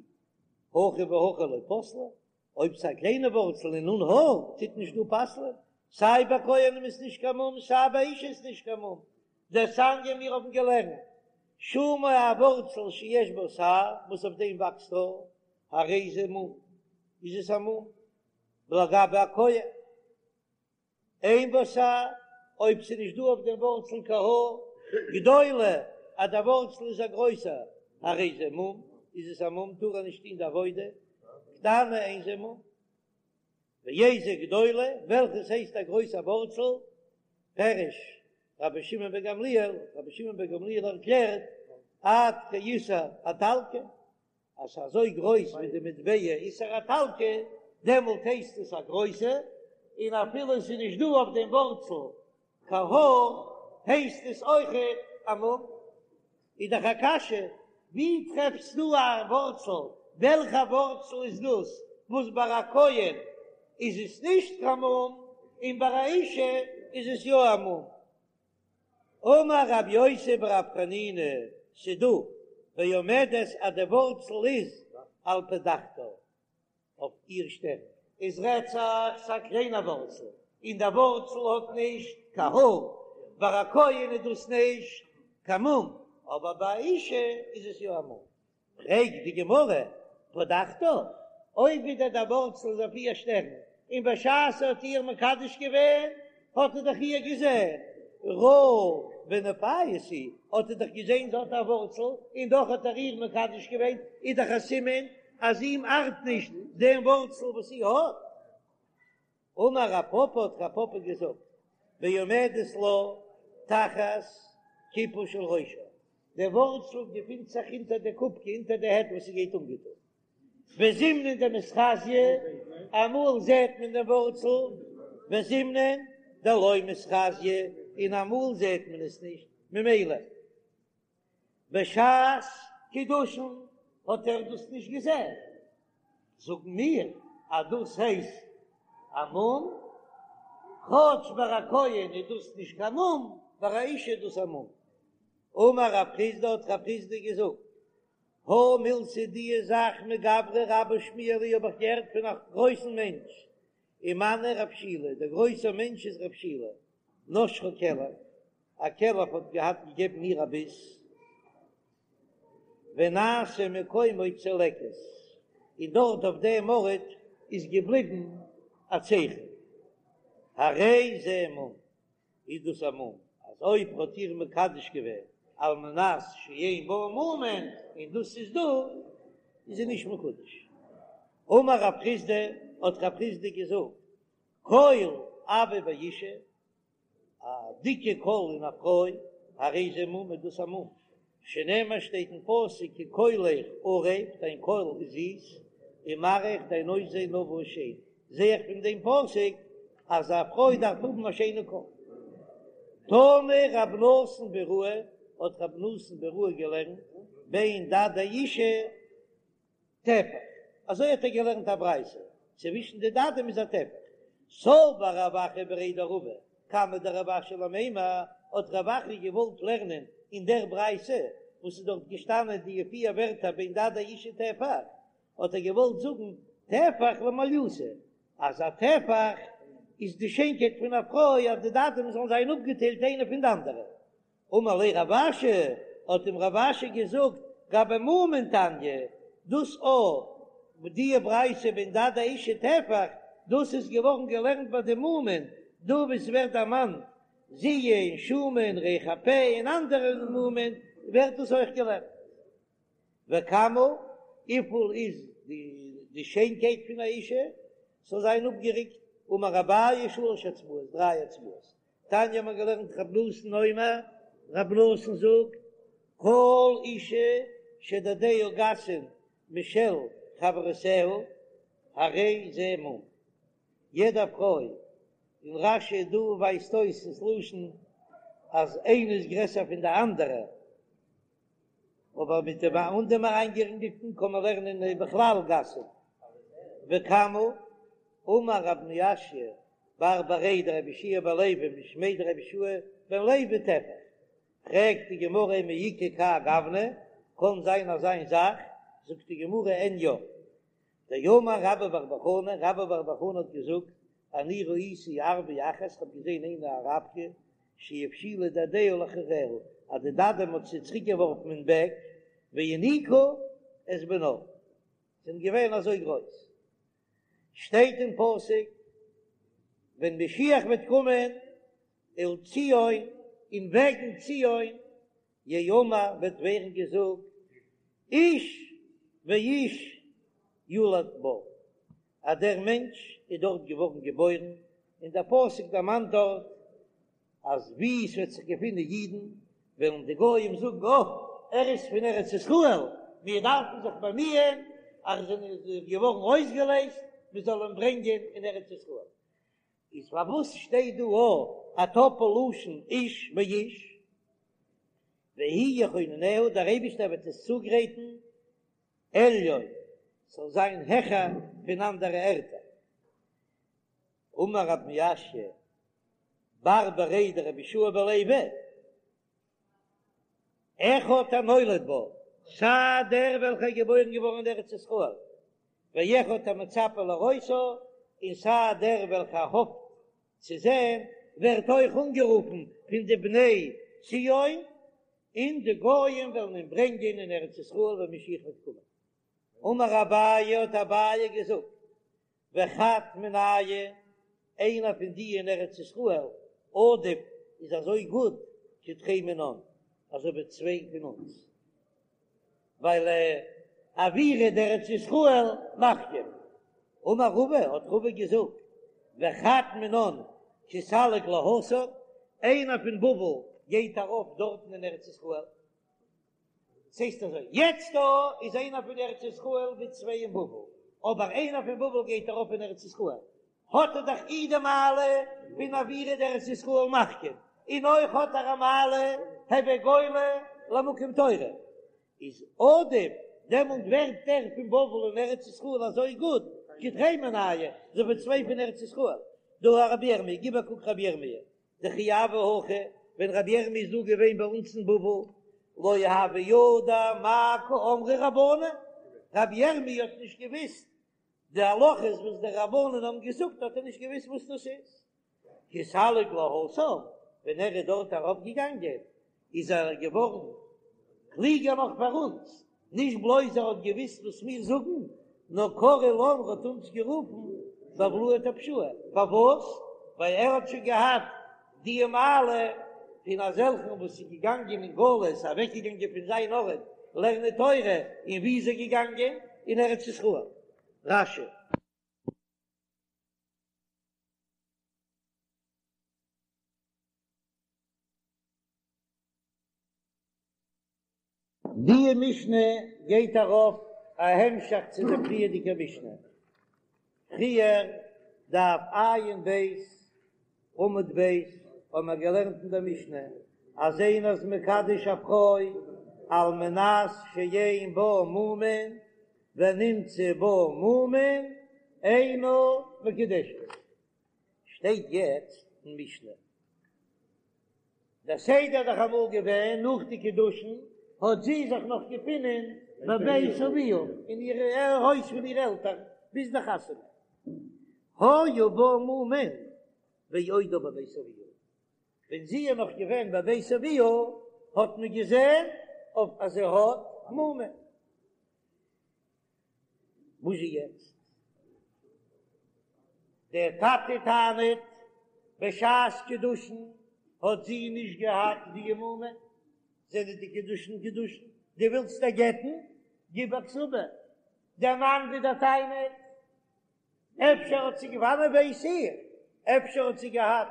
הכא והכא לא פסלה, אויב ס'איז א קליינע ווארצל און אן האר, טוט נישט דא פסל'ען, סיי ביי כהנים איז נישט קיין מום, סיי ביי אשה איז נישט קיין מום, דתניא מיר האבן געלערנט, שומא א ווארצל שיש בה שער, וואס אויף דעם וואקסט האר, הרי זה מום, איז עס א מום, לגבי א כהן. אין בה שער, אויב ס'איז נישט דא אויף דעם ווארצל קיין האר, גדולה, אז דער ווארצל איז א גרויסער, הרי זה מום, איז עס א מום, טאר ער נישט טון די עבודה, קטנה אין זה מום. ואיזה גדולה, וועלכעס הייסט א גרויסע ווארצל, פירש רבי שמעון בן גמליאל, רבי שמעון בן גמליאל ערקלערט, עד כאיסר האיטלקי, אז ס'איז אזוי גרויס ווי די מטבע איסר האיטלקי, דעמאלט הייסט עס א גרויסע, און אפילו עס איז נישט דא אויף דעם ווארצל קיין האר, הייסט עס אויכעט א מום. איז דאך א קשיא, ווי טרעפסטו א ווארצל, וועלכע ווארצל איז דאס וואס ביי א כהן איז עס נישט קיין מום, און ביי א אשה איז עס יא א מום? אמר רב יוסי ברב חנינא, ס'דא בעומדת אז די ווארצל איז על פדחתה אויף איר שטערן. איז רעדט זיך ס'א קליינע ווארצל און די ווארצל האט נישט קיין האר, ביי א כהן איז דאס נישט קיין מום, אבער ביי א אשה איז עס יא א מום. פרעגט די גמרא, פדחתה, אויב ווידער דער ווארצל איז אויף איר שטערן, און בשעת ער האט איר מקדש געווען האט ער דאך איר געזען, ראה ונפייס הוא, האט ער דאך געזען זי האט א ווארצל, און דאך האט ער איר מקדש געווען, איז דאך א סימן אז אים ארט נישט דעם ווארצל וואס זי האט. אמר רב פפא האט רב פפא געזאגט, בעומדת לה תחת כיפה של ראשה, דער ווארצל געפינט זיך אונטער די קופקע, אונטער די העט וואס זי גייט אנגעטון, וזימנין דמיתחזיא, אמאל זעט מען דעם ווארצל, וזימנין דלא מיתחזיא, און אמאל זעט מען עס נישט, ממילא בשעת קידושין האט ער דאס נישט געזען, זאגן מיר אז דאס הייסט א מום, כאטש ביי א כהן איז דאס נישט קיין מום, ביי א אשה איז דאס א מום. אמר רב חסדא האט רב חסדא געזאגט, הא מילתא די זאך מגברא רבה שמיע לי האב איך געהערט פון א גרויסן מענטש, ומנו רב שילא, דער גרויסער מענטש איז רב שילא, נשכה כלב, א כלב האט געהאט געגעבן איר א ביס, ונעשה מקומו צלקת, און דארט אויף דעם ארט איז געבליבן א צייכן, הרי זה מום, איז דאס א מום, אז אויב האט איר מקדש געווען על מנת שאין בה מומין, און דאס איז דא, איז זי נישט מקודש. אמר רב חסדא, האט רב חסדא געזאגט, כל אבא ואישה. א דיקע קול אין א פרוי, הרי זה מום איז דאס א מום, שנאמר שטייט אין פסוק כי קולך ערב, דיין קול איז זיס, ומראיך דיין אויסזען נאוה שיין, זע איך פון דעם פסוק אז א פרוי דארף האבן א שיינע קול. תנא רב נתן ביראי, האט רב נתן ביראי געלערנט, בין דדי אישה טפח, אזוי האט ער געלערנט א ברייתא, צווישן די דדים איז א טפח. סבר רב אחא בריה דרבא קמיה דרב אשי למימר, האט רב אחא געוואלט לערנען אין דער ברייתא וואס איז דארט געשטאנען די פיר ווערטער בין דדי אישה טפח, האט ער געוואלט זאגן טפח למעליותא, אז א טפח איז די שיינקייט פון א פרוי אז די דדים זאלן זיין אפגעטיילט איינע פון די אנדערע. אמר ליה רב אשי, האט אים רב אשי געזאגט, גבי מומין תניא, דאס א די ברייתא בין דדי אישה טפח, דאס איז געווארן געלערנט ביי די מומין, דא וואו ס'ווערט דערמאנט זיעה און שומא און ריח הפה און אנדערע מומין, ווערט דאס אויך געלערנט. וכמה, וויפיל איז די שיינקייט פון א אישה, ס'זאל זיין אפגעריקט, אמר אביי שלש אצבעות, דריי אצבעות, תניא האט מען געלערנט רב נתן אומר, רב נתן זאגט, כל אישה שדדיה גסין משל חברותיה, הרי זה מום. יעדע פרוי, און רש"י דא ווייזט אויס דאס לשון אז איינע איז גרעסער פון די אנדערע, אבער מיט דעם אן דעם אריינגערינגלטן קען מען לערנען בכלל גסין. וכמה, אמר רב מיאשא בר בריה דרבי יהושע בן לוי משמיה דרבי יהושע בן לוי טפח, פרעגט די גמרא מי איכא כהאי גוונא, קען זיין אזא זאך, זאגט די גמרא אין יא, דאמר רבה בר בר חנה, רבה בר בר חנה האט געזאגט, אני ראיתי ערביא אחת, כ'האב געזען איינע אן אראבקע, שהפשילה דדיה לאחוריה, אז די דדים האט זי צוריק געווארפן אין בעק, והיניקה את בנה, זענען געווען אזוי גרויס. שטייט אין פסוק, ווען משיח וועט קומען, ולציון, און וועגן ציון, יאמר וועט ווערן געזאגט, איש ואיש יולד בה, אז דער מענטש איז דארט געווארן געבוירן, און דער פסוק דערמאנט דארט אז וואו עס וועט זיך געפינען אידן, וועלן די גויים זאגן, אה, ער איז פון ארץ ישראל, מיר דארפן זיך באמיען אז ער איז געווארן אויסגעלייזט, מען זאל אים ברענגען אין ארץ ישראל. איז פארוואס שטייט דא א א טאפל לשון איש ואיש? והוא יכוננה, דער אייבישטער וועט עס צוגרייטן עליון, ס'זאל זיין העכער פון אנדערע ערטער. אמר רב מיאשא בר בריה דרבי יהושע בן לוי, אחד הנולד בה, סיי דער וועלכער איז געבוירן געווארן אין ארץ ישראל, ואחד המצפה לראותה, און סיי דער וועלכער האפט צו זען, ווערט אויך אנגערופן פון די בני ציון, און די גויים וועלן אים ברענגען אין ארץ ישראל ווען משיח וועט קומען. אמר אביי, האט אביי געזאגט, וחד מינייהו, איינער פון די אין ארץ ישראל, עדיף איז אזוי גוט כתרי מינן, אזוי ווי צוויי פון אונז, ווייל אוירא דארץ ישראל מחכים. אמר רבא, האט רבא געזאגט, וחד מינן כי סליק להתם, איינער פון בבל גייט ארויף דארטן אין ארץ ישראל, ס'הייסט אזוי, יעצט דא איז איינער פון ארץ ישראל ווי צוויי אין בבל, אבער איינער פון בבל גייט ארויף אין ארץ ישראל, האט ער דאך אי די מעלה פון אוירא דארץ ישראל מחכים, און אויך האט ער א מעלה הוי גולה למקום תורה, איז עדיף, דעמאלט ווערט דער פון בבל אין ארץ ישראל אזוי גוט, כתרי מינייהו, אזוי ווי צוויי פון ארץ ישראל, דהא רבי ירמי', גיב א קוק רבי ירמי', דכי הוה הכא, ווען רבי ירמי' איז דא געווען ביי אונז אין בבל, לא הוה ידע מאי קאמרי רבנן, רבי ירמי' האט נישט געוויסט די הלכות וואס די רבנן האבן געזאגט האט ער נישט געוויסט וואס דאס איז, כי סליק להתם, ווען ער איז דארט ארויף געגאנגען איז ער געווארן קלוגער נאך פאר אונז, נישט בלויז ער האט געוויסט וואס מיר זאגן, נאר קרי לן ער האט אונז גערופן בבלאי טפשאי, פארוואס? ווייל ער האט שוין געהאט די מעלה פון אזעלכן וואס איז געגאנגען אין גלות, אוועקגעגאנגען פון זיין ארט לערנען תורה, און וואו איז ער געגאנגען? אין ארץ ישראל. רש"י. די משנה גייט ארויף א המשך צו די פריערדיגע משנה, פריער דף עיין ב' עמוד ב' האבן מיר געלערנט אין דער משנה אז איינער איז מקדש א פרוי על מנת שאין בה מומין ונמצא בה מומין אינה מקודשת, שטייט יעצט אין משנה דער סדר איז דאך אמאל געווען נאך די קידושין האט זי זיך נאך געפינען בבית אביה אין איר הויז פון איר עלטערן ביז די חתונה היו בה מומין בעודה בבית אביה ווען זי איז נאך געווען בבית אביה האט מען געזען אויף אז זי האט מומין. וואס איז יעצט? דער טאטע טענה'ט, בשעת קידושין האט זי נישט געהאט די מומין, זענען די קידושין קידושין, דו ווילסט איר גט'ן? גיב א כתובה. דער מאן ווידער טענה'ט, אפשר האט זי וואנען ווייס איך, אפשר האט זי געהאט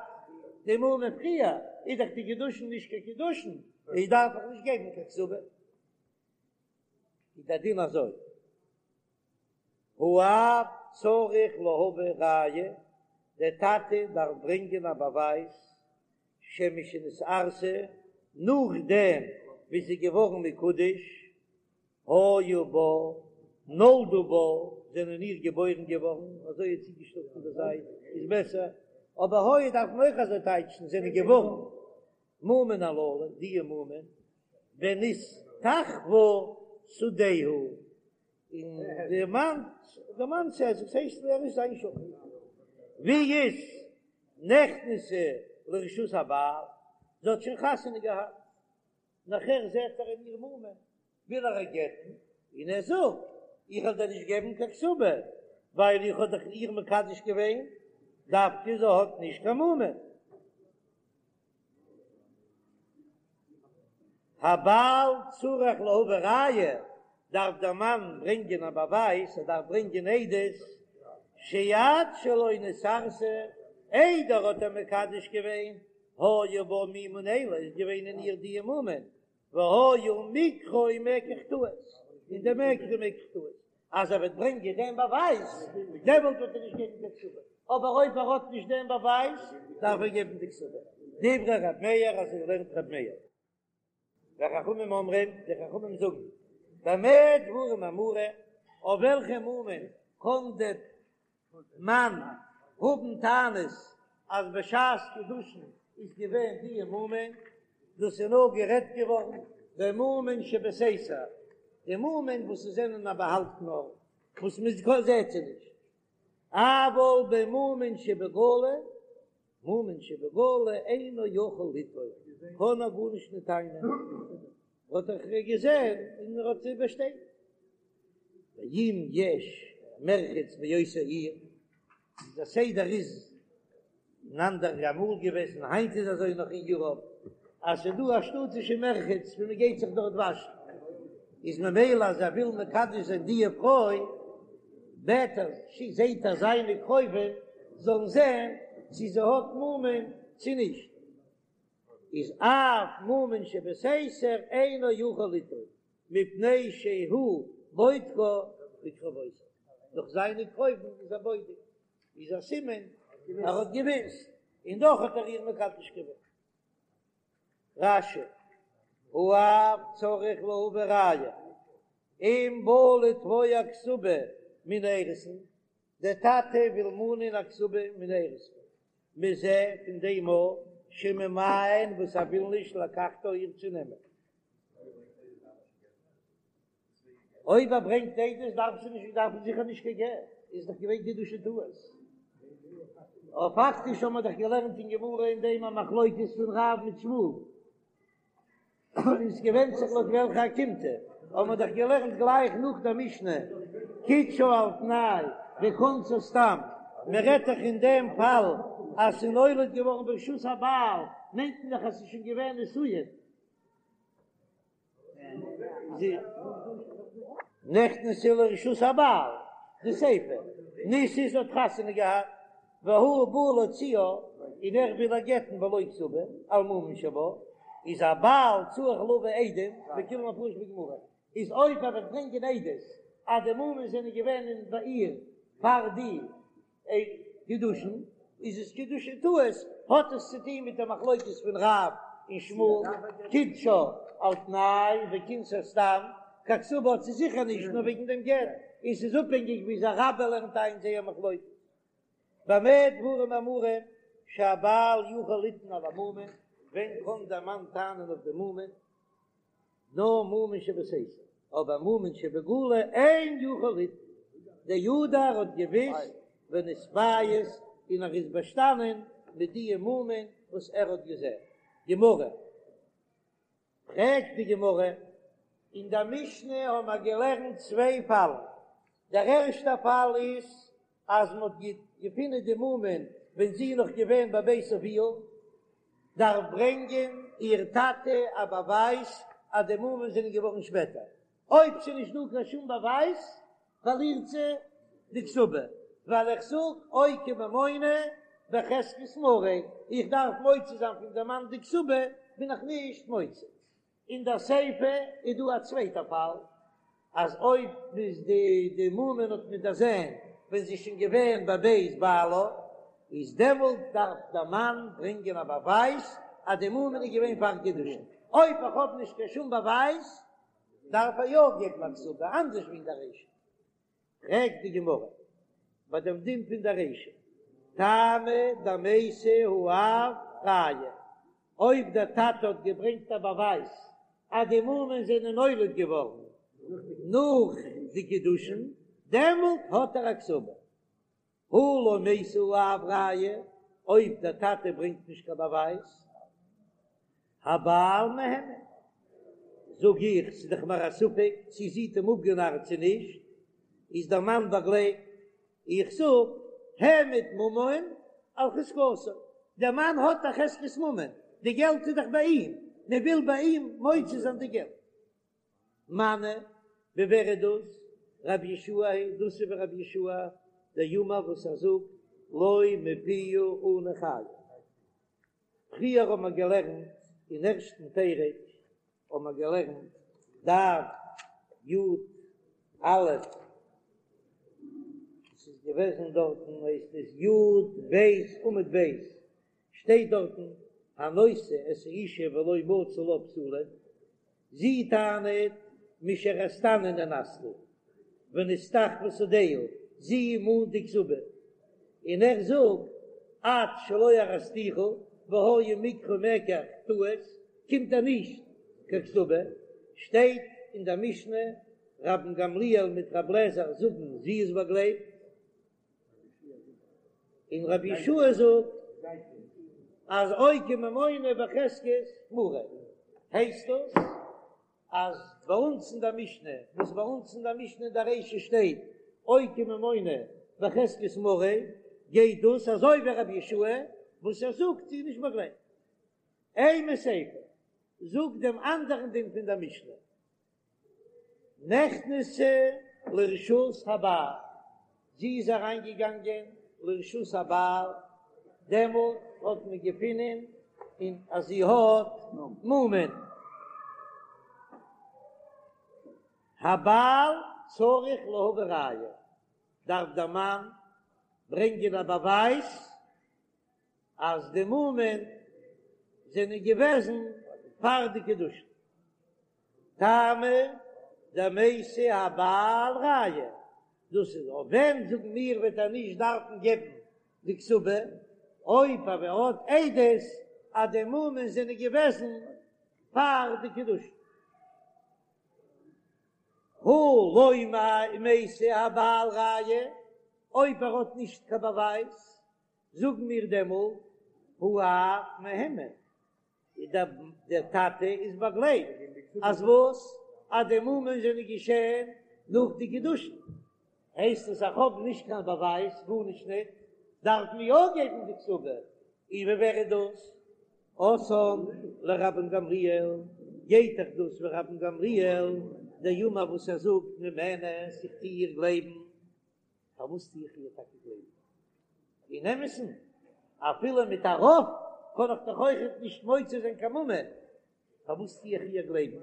די מומין פריער, איז דאך די קידושין נישט קיין קידושין, איז דארף איך נישט געבן קיין כתובה. איז דער דין אזוי, האב צריך להביא ראיה, דער טאטע דארף ברענגען א באווייז שמשנתארסה, נאכדעם ווי זי איז געווארן מקודש, היו בה, נולדו בה, זענען איר געבוירן געווארן, אזוי איז צוגעשטעלט פון די זייט איז בעסער, אבער היו דארף מען אויך אזוי טייטשן, זענען געווארן. מומין הללו, די מומין, ונסתחפה שדהו, און די מאן, די מאן ס'איז, עס הייסט ער איז זיין שכן, ווי איז נכנסה לרשות הבעל, זי האט שוין חתונה געהאט, נאכער זעט ער אין איר מומין, וויל ער איר גט'ן, און ער זאגט, איך וועל דיר נישט געבן קיין כתובה, ווייל איך האב דאך איר מקדש געווען, דווקא זי האט נישט קיין מומין. הבעל צריך להביא ראיה, דארף דער מאן ברענגען א באווייז, ער דארף ברענגען עדות, שעד שלא נתארסה, איידער האט ער מקדש געווען, היו בה מומין אלו, איז געווען אין איר די מומין, והיה מקחו מקח טעות, און דער מקח איז מקח טעות, אז ער וועט ברענגען דעם באווייז, דעמאלט וועט ער נישט געבן קיין כתובה, אבער אויב ער האט נישט דעם באווייז, דארף ער געבן די כתובה. דברי ר' מאיר, אזוי לערנט ר' מאיר. וחכמים אומרים, די חכמים זאגן, במה דברים אמורים, אויף וועלכע מומין קען דער מאן האבן טענות אז בשעת קידושין איז געווען די מומין, דאס איז נאר גערעדט געווארן במומין שבסתר, די מומין וואס זענען א באהאלטן ארט וואס מען זעט זיי נישט, אבל במומין שבגלוי, מומין שבגלוי אינו יכול לטעון, קען ער גארנישט נישט טענה'ן, האט ער געזען און ער האט זיי באשטעטיגט. ואם יש מרחץ באותה עיר, דער סדר איז אין אנדערע אמאל געוועזן, היינט איז אזוי נאך אין יוראפ, אז ס'איז דא א שטאטישע מרחץ ווי מ'גייט זיך דארט וואשן, איז ממילא אז ער וויל מקדש זיין די פרוי, בעט ער, זעט ער זיינע קרובים זאלן זען צו זי האט מומין צו נישט, איז אף מומין שבסתר אינו יכול לטעון. מפני שהוא בודקה בקרובותיו, דורך זיינע קרובים איז ער בודק, איז א סימן ער האט געוויסט, און דאך האט ער איר מקדש געווען. רש"י, האב צריך להביא ראיה, אם בא לתבוע כתובה מן האירוסין, דער טאטע וויל מאנען א כתובה מן האירוסין, מזה פון דעם מאל שממאן וואס ער וויל נישט לקחתה איר צו נעמען. אויב ער ברענגט עדות דארף זי נישט דארף זיכער נישט קיין גט, איז דאך געווען קידושי טעות. אבער פאקטיש האבן מיר דאך געלערנט אין גמרא אין דעם א מחלוקת פון רב מיט שמואל, און עס געווענדט זיך לויט וועלכע אוקימתא, האבן מיר דאך געלערנט גלייך נאך דער משנה קידשה על תנאי וכנסה סתם, מען רעדט דאך אין דעם פאל אז ס'איז נולד געווארן ברשות הבעל, מיינט מען דאך אז ס'איז שוין געווען נישואין. נכנסה לרשות הבעל, די סיפא, נישאת האט חתונה געהאט, והוא בא להוציאה, און ער וויל איר גט'ן בלא כתובה, על מומין שבה. איז הבעל צריך להביא עדים וכולן מפרש בגמרא, איז אויב ער וועט ברענגען עדות אז די מומין זענען געווען אין ביי איר פאר די קידושין, איז עס קידושי טעות, האט עס צו טון מיט די מחלוקת פון רב און שמואל, קידשה על תנאי וכינסה סתם, קיין כתובה האט זי זיכער נישט נאר וועגן דעם גט, און ס'איז אפהענגיק ווי אזוי רבה לערנט איין זייער מחלוקת. במה דברים אמורים שהבעל יכול לטעון על המומין, ווען קען דער מאן טענה'ן אויף די מומין? נאר מומין שבסתר, אבער מומין שבגלוי אין יכול לטעון, דידע ער האט געוויסט ונתפייס און ער איז באשטאנען מיט די מומין וואס ער האט געזען. גמרא. פרעגט די גמרא, אין דער משנה האבן מיר געלערנט צוויי פאלן, דער ערשטער פאל איז אז מען האט געפונען די מומין ווען זי איז נאך געווען בבית אביה, דארף ברענגען איר טאטע א באווייז אז די מומין זענען געווארן שפעטער, אויב ס'איז נישט דא קיין שום באווייז פארלירט זי די כתובה, ווייל איך זאג אוקי ממונא בחזקת מריה, איך דארף מוציא זיין פון די מאן די כתובה, בין איך נישט מוציא. אין דער סיפא איז דא א צווייטע פאל, אז אויב איז די די מומין האט מען דערזען ווען זי איז שוין געווען בבית בעלה, איז דעמאלט דארף דער מאן ברענגען א באווייז אז די מומין איז געווען פאר קידושין, אויב איך האב נישט קיין שום באווייז דארף ער יא געבן א כתובה, אנדערש ווי אין דער רישא. פרעגט די גמרא ביי דעם דין פון דער רישא, טעמא דמייתי האב ראיה, אויב דער טאטע האט געברענגט א באווייז אז די מומין זענען נולד געווארן נאך די קידושין, דעמאלט האט ער א כתובה. הא לא מייתי האב ראיה, אויב דער טאטע ברענגט נישט קיין באווייז, הבעל מהימן, זאג איך, ס'איז דאך מיר א ספק צי זי האט אים אפגענארט צו נישט, איז דער מאן באגלייבט, איך זאג, העמד ממון על חזקתו, דער מאן האט א חזקת ממון, די געלט איז דאך ביי אים, מען וויל ביי אים מוציא זיין די געלט. מני, ווי ווער איז דאס? רבי יהושע היא, דאס איז ווי רבי יהושע דאמר וואס ער זאגט לא מפיה אנו חיין. פריער האבן מיר געלערנט אין ערשטן פרק האבן מיר געלערנט דף י א, עס איז געוועזן דארטן הייסט עס י ב עמוד ב', שטייט דארטן הנושא את האשה ולא מצא לה בתולים, זי טענה'ט משארסתני נאנסתי ונסתחפה שדהו, זי מאנט די כתובה, און ער זאגט עד שלא ארסתיך והיה מקחו מקח טעות, קומט ער נישט קיין כתובה, שטייט אין דער משנה רבן גמליאל מיט רב לעזער זאגן זי איז באגלייבט, און רבי יהושע זאגט אז אוקי ממונא בחזקת מריה, הייסט דאס אז ביי אונז אין דער משנה, וואס ביי אונז אין דער משנה אין דער רישא שטייט אוקי ממונא בחזקת מריה, גייט דאס אזוי ווי רבי יהושע וואס ער זאגט זי איז נישט באגלייבט. אימא סיפא, זאג דעם אנדערן דין פון דער משנה. נכנסה לרשות הבעל, זי איז אריינגעגאנגען לרשות הבעל, דעמאלט האט מען געפונען און אז זי האט מומין. הבעל צריך להביא ראיה, דארף דער מאן ברענגען א באווייז אז די מומין זענען געוועזן פאר די קידושין. טעמא דמייתי הבעל ראיה, דאס איז אויף ווען זאגן מיר וועט ער נישט דארפן געבן די כתובה, אויב אבער ער האט עדות אז די מומין זענען געוועזן פאר די קידושין. הא לא מייתי הבעל ראיה, אויב ער האט נישט קיין באווייז, זאגן מיר דעמאלט האב מהימן, דער טאטע איז באגלייבט אז וואס? אז די מומין זענען געשען נאך די קידושין, הייסט עס איך האב נישט קיין באווייז גארנישט ניט, דארף מען יא געבן די כתובה, און ווי ווער איז דאס? אתאן לרבן גמליאל, גייט דאך דאס ווי רבן גמליאל דאמר וואס ער זאגט נאמנת איך טו איר גלייבן. פארוואס טו איך איר טאקע גלייבן? אין אמת'ן, אפילו מיט א רוב קען איך דאך אויכעט נישט מוציא זיין קיין ממון. פארוואס טו איך איר גלייבן?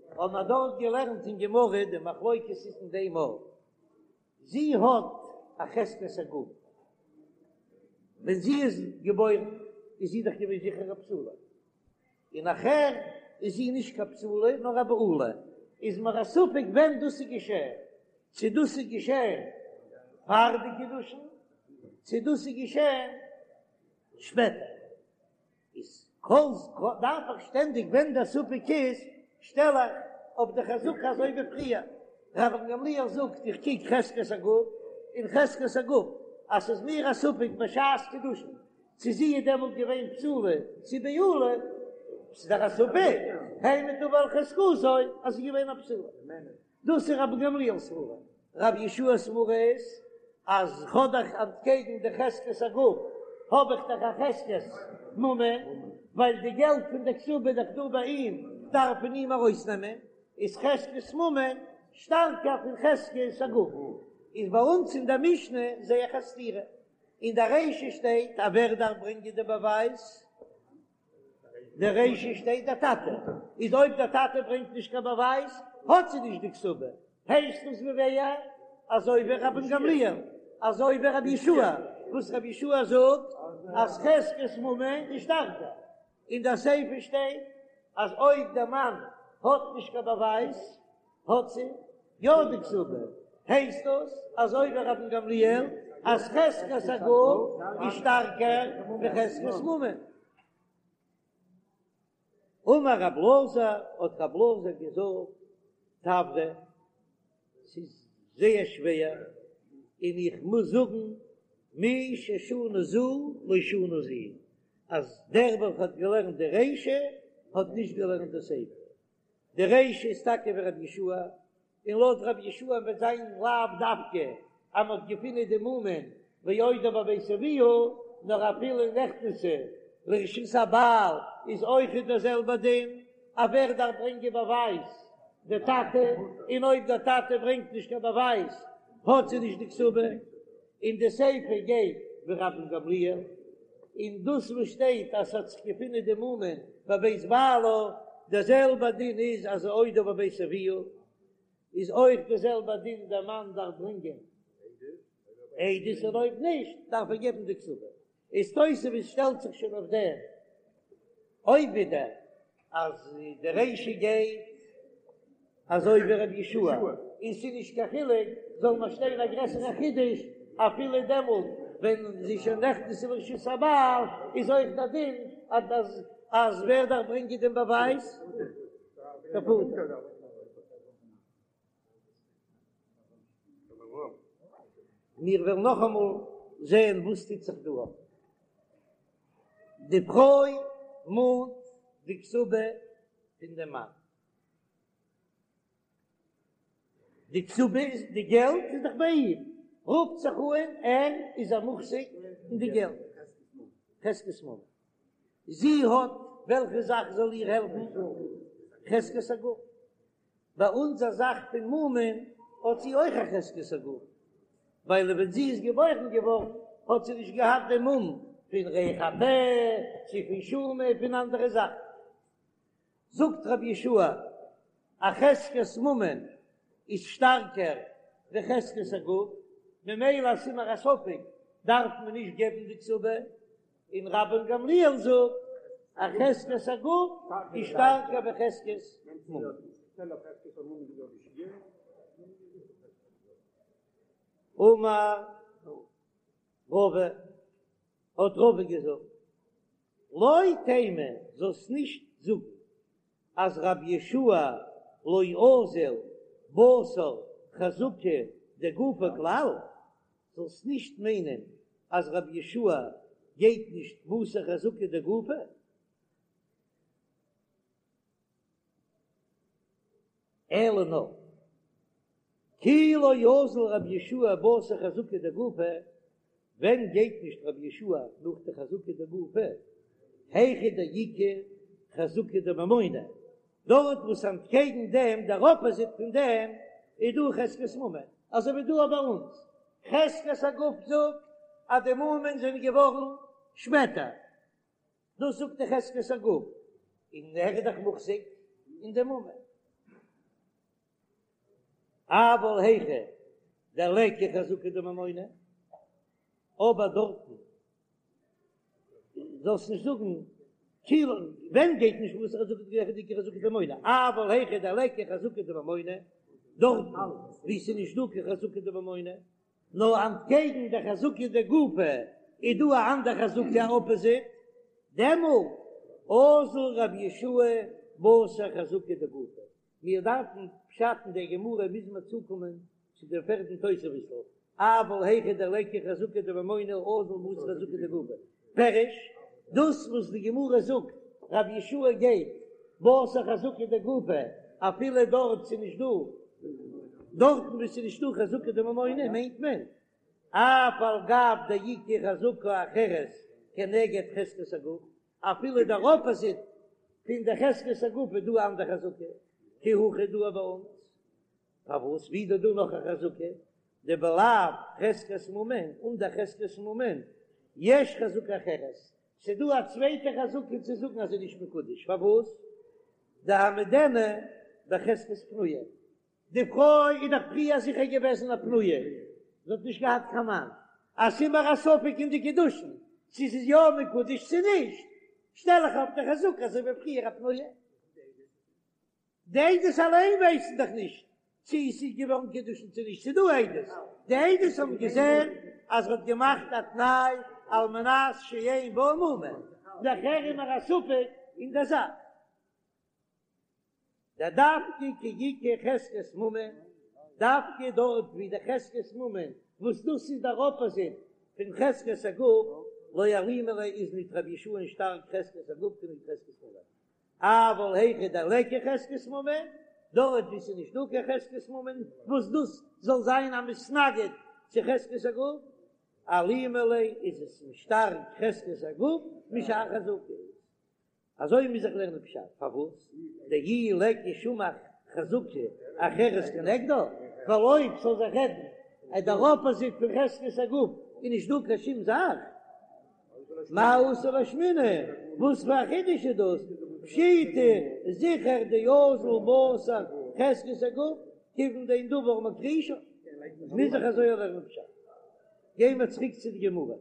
האבן מיר דארט געלערנט אין גמרא די מחלוקת איז אין דעם ארט, זי האט א חזקת הגוף, ווען זי איז געבוירן איז זי דאך געווען זיכער א בתולה, און נאכער איז זי נישט קיין בתולה נאר א בעולה, איז מיר א ספק ווען דאס איז געשען, צו דאס איז געשען פאר די קידושין, צו דאס איז געשען שפעטער. איז כל דארף איך שטענדיג ווען דער ספק איז שטעל איך אויף די חזקה אזוי ווי פריער רבן גמליאל זאגט איך קוק חזקת הגוף און חזקת הגוף אז ס'איז מיר א ספק בשעת קידושין צו זי איז דעמאלט געווען בתולה צו בעולה ס'איז דאך א ספק העמד דבר על חזקתו אז זי איז געווען א בתולה. דאס איז רבן גמליאל'ס סברה. רבי יהושע'ס סברה איז אז כ'האב דאך אנטקעגן די חזקת הגוף האב איך דאך א חזקת ממון, ווייל די געלט פון די כתובה איז דאך דא ביי אים, דארף מען אים ארויסנעמען, איז חזקת ממון שטארקער פון חזקת הגוף. איז ביי אונז אין דער משנה זעה איך א סתירה. אין דער רישא שטייט אז ווער דארף ברענגען די באווייז? די רישא שטייט דער טאטע, איז אויב דער טאטע ברענגט נישט קיין באווייז האט זי נישט די כתובה, הייסט עס ווי ווער? אזוי ווי רבן גמליאל, אזוי ווי רבי יהושע, וואס רבי יהושע זאגט אז חזקת ממון איז שטארקער, אין דער סיפא שטייט אז אויב דער מאן האט נישט קיין באווייז האט זי יא די כתובה, הייסט דאס אזוי ווי רבן גמליאל אז חזקת הגוף איז שטארקער ווי חזקת ממון. אמר רב אלעזר, האט רב אלעזר געזאגט, תברא, ס'איז זייער שווער, און איך מוז זאגן, מי ששנה זו לא שנה זו, אז דער וועלכער האט געלערנט די רישא האט נישט געלערנט די סיפא. די רישא איז טאקע ווי רבי יהושע, און לויט רבי יהושע וועט זיין לאו דווקא אז מען האט געפונען די מומין ועודה בבית אביה, נאר אפילו נכנסה לרשות הבעל איז אויכעט דער זעלבער דין, אז ווער דארף ברענגען באווייז? די טאטע, און אויב דער טאטע ברענגט נישט קיין באווייז האט זי נישט די כתובה. און די סיפא גייט ווי רבן גמליאל, און דאס וואס שטייט אז ס'האט זיך געפונען די מומין בבית בעלה, דער זעלבע דין איז אז עודה בבית אביה, איז אויך דער זעלבע דין דער מאן דארף ברענגען עדות און אויב נישט דארף ער געבן די כתובה. איז תוספות שטעלט זיך שוין אויף דעם אויב ווידער אז די רישא גייט אזוי ווי רבי יהושע און ס'איז נישט קיין חילוק זאל מען שטיין א גרעסערע חידוש אפילו דעמאלט ווען זי איז שוין נכנסה לרשות הבעל איז אויך דער דין אז אז ווער דארף ברענגען דעם באווייז? דער פאטער. מיר וועלן נאכאמאל זען וואס טוט זיך דא אפ. די פרוי מאנט די כתובה פון דעם מאן. די כתובה איז די געלט איז דאך ביי אים, רופט זיך אן ער איז א מוחזק אין די געלט, חזקת ממון. זי האט וועלכע זאך זאל איר העלפן? חזקת הגוף. ביי אונזער זאך פון מומין האט זי אויך א חזקת הגוף, ווייל ווען זי איז געבוירן געווארן האט זי נישט געהאט דעם מום פון ריח הפה צו פון שומא פון אנדערע זאכן. זאגט רבי יהושע א חזקת ממון איז שטארקער ווי חזקת הגוף, ממילא אז ס'איז מיר א ספק דארף מען נישט געבן די כתובה, און רבן גמליאל זאגט אז חזקת הגוף איז שטארקער ווי חזקת ממון. אמר רבא, האט רבא געזאגט, לא תימא, זאלסט נישט זאגן אז רבי יהושע לא אזיל בתר חזקה דגופא כלל, זאלסט נישט מיינען אז רבי יהושע גייט נישט בתר חזקה דגופא, אלא נאר כי לא אזיל רבי יהושע בתר חזקה דגופא, ווען גייט נישט רבי יהושע נאך די חזקה דגופא, היכא דאיכא חזקה דממונא, דארט וואס אנטקעגן דעם, דער אפאזיט פון דעם, איז דא חזקת ממון, אזוי ווי דא ביי אונז, חזקת הגוף זאגט אז די מומין זענען געווארן שפעטער, דאס זאגט די חזקת הגוף. און ער איז דאך מוחזק אין די ממון. אבל היכא דליכא חזקה דממונא, אבער דארטן זאלסט נישט זאגן כאילו ווען גייט נישט בתר חזקה דאיכא חזקה דממונא, אבל היכא דליכא חזקה דממונא, דארטן וואו ס'איז נישט דא קיין חזקה דממונא, נאר אנטקעגן די חזקה דגופא איז דא א אנדער חזקה א אפאזיט, דעמאלט אזיל רבי יהושע בתר חזקה דגופא. מיר דארפן פשט אין דער גמרא מוז מען צוקומען צו דעם פערטן תוספות'ל, אבל היכא דליכא חזקה דממונא אזיל בתר חזקה דגופא. פירוש, דאס וואס די גמרא זאגט רבי יהושע גייט בתר חזקה דגופא אפילו דארט ס'איז נישט דא, דארטן וואו ס'איז נישטא חזקה דממונא מיינט מען אף על גב דאיכא חזקה אחרת כנגד חזקת הגוף, אפילו דער אפאזיט פון די חזקת הגוף איז דא א אנדער חזקה, כי הכא דא ביי אונז, פארוואס ווי איז דא נאך א חזקה, דבלאו חזקת ממון, אן דער חזקת ממון, יש חזקה אחרת, ס'דא א צווייטע חזקה צו זאגן אז זי איז נישט מקודש, פארוואס? דהעמידנה בחזקת פנויה, די פרוי איז דאך פריער זיכער געוועזן א פנויה, זי האט נישט געהאט קיין מאן, אז ס'איז מיר א ספק אין די קידושין צו ס'איז יא מקודש צו נישט, שטעל איך אויף די חזקה אזוי ווי פריער א פנויה. די עדות אליין ווייסן דאך נישט צו עס איז געווארן קידושין צו נישט, ס'איז דא עדות, די עדות האבן געזען אז ער האט געמאכט א תנאי על מנת שאין בה מומין, נאכער איז מיר א ספק אין די זאך. דדווקא כי איכא חזקת ממון, דווקא דארט ווי די חזקת ממון וואס דאס איז דער אפאזיט פון חזקת הגוף, לא אלימא ליה איז ניט רבי יהושע'ן שטארק חזקת הגוף כנגד חזקת ממון, אבל היכא דליכא חזקת ממון, דארט ווי ס'איז נישט דא קיין חזקת ממון וואס דאס זאל זיין א מתנגד צו חזקת הגוף, אלימא ליה איז עס שטארק חזקת הגוף משאר חזקות. אזוי מוז איך לערנען פשט, פארוואס דאי ליכא שום חזקה אחרת כנגדה, ווייל אויב ס'זאל זיך רעדן אז דער אפאזיט פון חזקת הגוף איז נישט דא קיין שום זאך, מאי אתא לאשמועינן, וואס פאר א חידוש איז דאס, פשיטא זיכער דאזיל בתר חזקת הגוף, כיוון דאין דבר מכחישו, מוז איך אזוי לערנען פשט. גייען מיר צוריק צו די גמרא.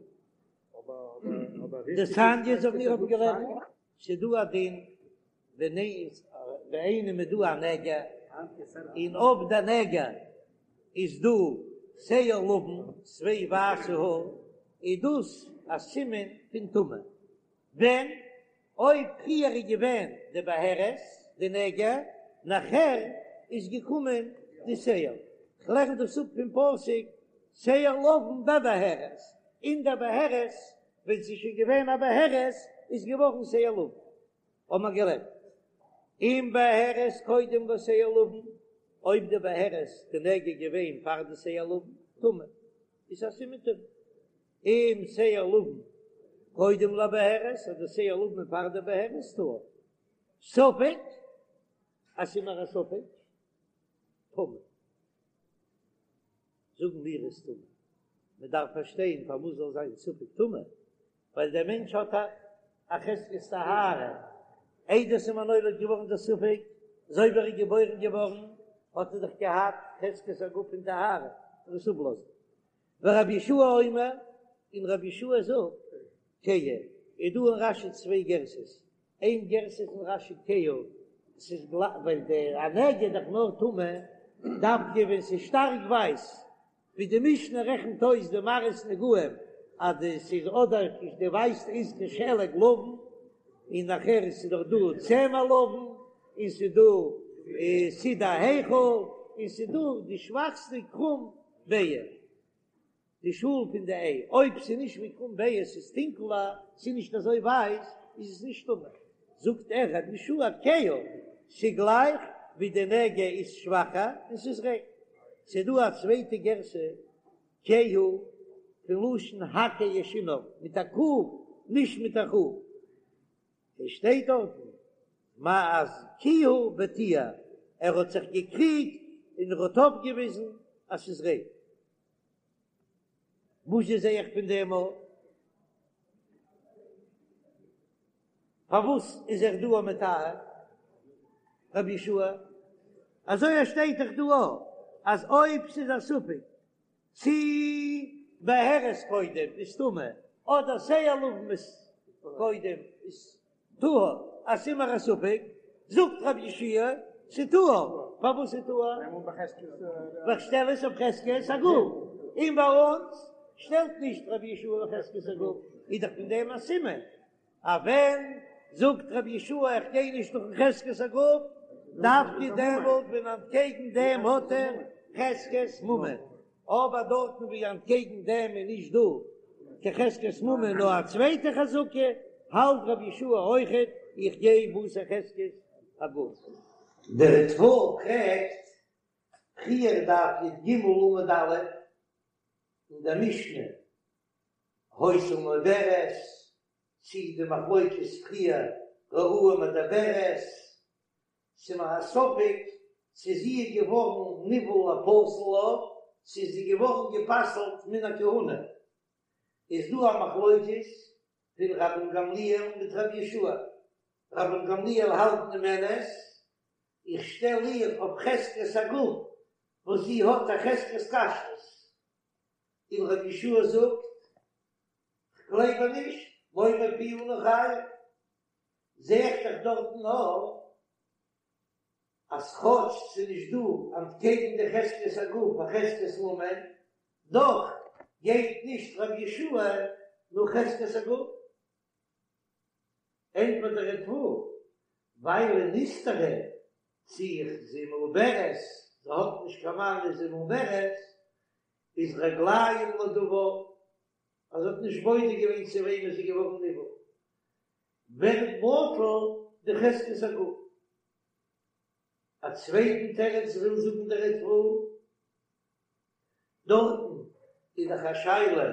דתניא אזוי ווי מיר האבן געלערנט, ס'איז דא א דין ווען ביי איינעם איז דא א נגע, און אויף די נגע איז דא שער לבן, צוויי ווייסע האר, איז דאס א סימן פון טומאה. ווען אויב פריער איז געווען די בהרת, די נגע, נאכער איז געקומען די שער. כ'לערן דאס אפ פון פסוק שער לבן בבהרת, אין דער בהרת, ווען ס'איז שוין געווען א בהרת, איז געווארן שער לבן. האבן מיר געלערנט, אם בהרת קודם לשער לבן, אויב די בהרת, די נגע איז געווען פאר די שער לבן, טמא, איז א סימן טומאה. אם שער לבן קודם לבהרת, אז די שער לבן איז פאר די בהרת, טהור. ספק, אז ס'איז מיר א ספק, טמא. זאגן מיר איז טמא. מען דארף פארשטיין פארוואס זאל זיין ספק טמא, ווייל דער מענטש האט א א חזקת טהרה, איידער ס'איז אים נולד געווארן דער ספק, אזוי ווי ער איז געבוירן געווארן האט ער דאך געהאט חזקת הגוף פון טהרה, און עס אפלאזן. ורבי יהושע אומר, און רבי יהושע זאגט, כהה, איז דא אין רש"י צוויי גרסאות, איין גרסה איז אין רש"י כהה, ס'איז גלייך, ווייל די א נגע איז דאך נאר טמא דווקא ווען ס'איז שטארק ווייס, ווי די משנה רעכנט אויס די מראות נגעים אז די ס'איז אדער די ווייסע איז כשלג לבן, און נאכער איז ס'דאך דא צמר לבן, און ס'איז דא סיד ההיכל, און ס'איז דא די שוואכסטע קרום ביעה, די שאל פון די איי, אויב ס'איז נישט ווי קרום ביעה, ס'איז טונקלער, ס'איז נישט אזוי ווייס, איז עס נישט טמא. זאגט ער רבי יהושע כהה, ס'גלייך ווי די נגע איז שוואכער און ס'איז ריין. ס'איז דא א צווייטע גירסא, כהה, פון לשון הקהה שיניו, מיט א ק, נישט מיט א כ. עס שטייט דארטן מה אז כיהה וטיהר, ער האט זיך געקריגט און ער האט אויפגעוויזן אז ס'איז ריין. וואס זע איך פון דעם אויף? פארוואס איז ער דא מטהר רבי יהושע? אזוי עס שטייט דאך דא אויך אז אויב ס'איז א ספק צי בהרת קודם איז טמא אדער שער לבן איז קודם איז טהור אז ס'איז מיר א ספק זאגט רבי יהושע ס'טהור, פארוואס איז טהור? ווייל כ'שטעל עס אויף חזקת הגוף, און ביי אונז שטעלט נישט רבי יהושע אויף חזקת הגוף, איז דאך פון דעם א סימן אז ווען זאגט רבי יהושע איך גיי נישט נאכן חזקת הגוף, דווקא דעמאלט ווען אנטקעגן דעם האט ער חזקת ממון, אבער דארטן ווי אנטקעגן דעם איז נישט דא קיין חזקת ממון נאר א צווייטע חזקה, האלט רבי יהושע אויכעט איך גיי בתר חזקת הגוף. דער ריטב"א פרעגט, פריער דף י"ג עמוד א', אין דער משנה היתה מעוברת, צי די מחלוקת פריער ראוה מדברת, ס'איז מיר א ספק צו זי איז געווארן נבעל לפסול לה, צו איז זי געווארן גע'פסל'ט מן הכהונה, איז דא א מחלוקת פון רבן גמליאל מיט רבי יהושע, רבן גמליאל האלט נאמנת, איך שטעל איר אויף חזקת הגוף וואס זי האט א חזקת כשרות, און רבי יהושע זאגט, כ'גלייב איר נישט, לא מפיה אנו חיים, זע איך דאך דארטן נאר אז כאטש ס'איז נישט דא אנטקעגן די חזקת הגוף א חזקת ממון, דאך גייט נישט רבי יהושע נאך חזקת הגוף. ענטפערט דער ריטב"א, ווייל נסתרה צי זי מעוברת, זי האט נישט קיין מאן איז זי מעוברת, איז רגליים לדבר, אז זי האט נישט בודק געווען צו וועמען זי איז געווארן נבעל, ווערט בטל די חזקת הגוף. א צווייטן תירוץ וויל זאגן דער ריטב"א, דארטן איז דאך א שאלה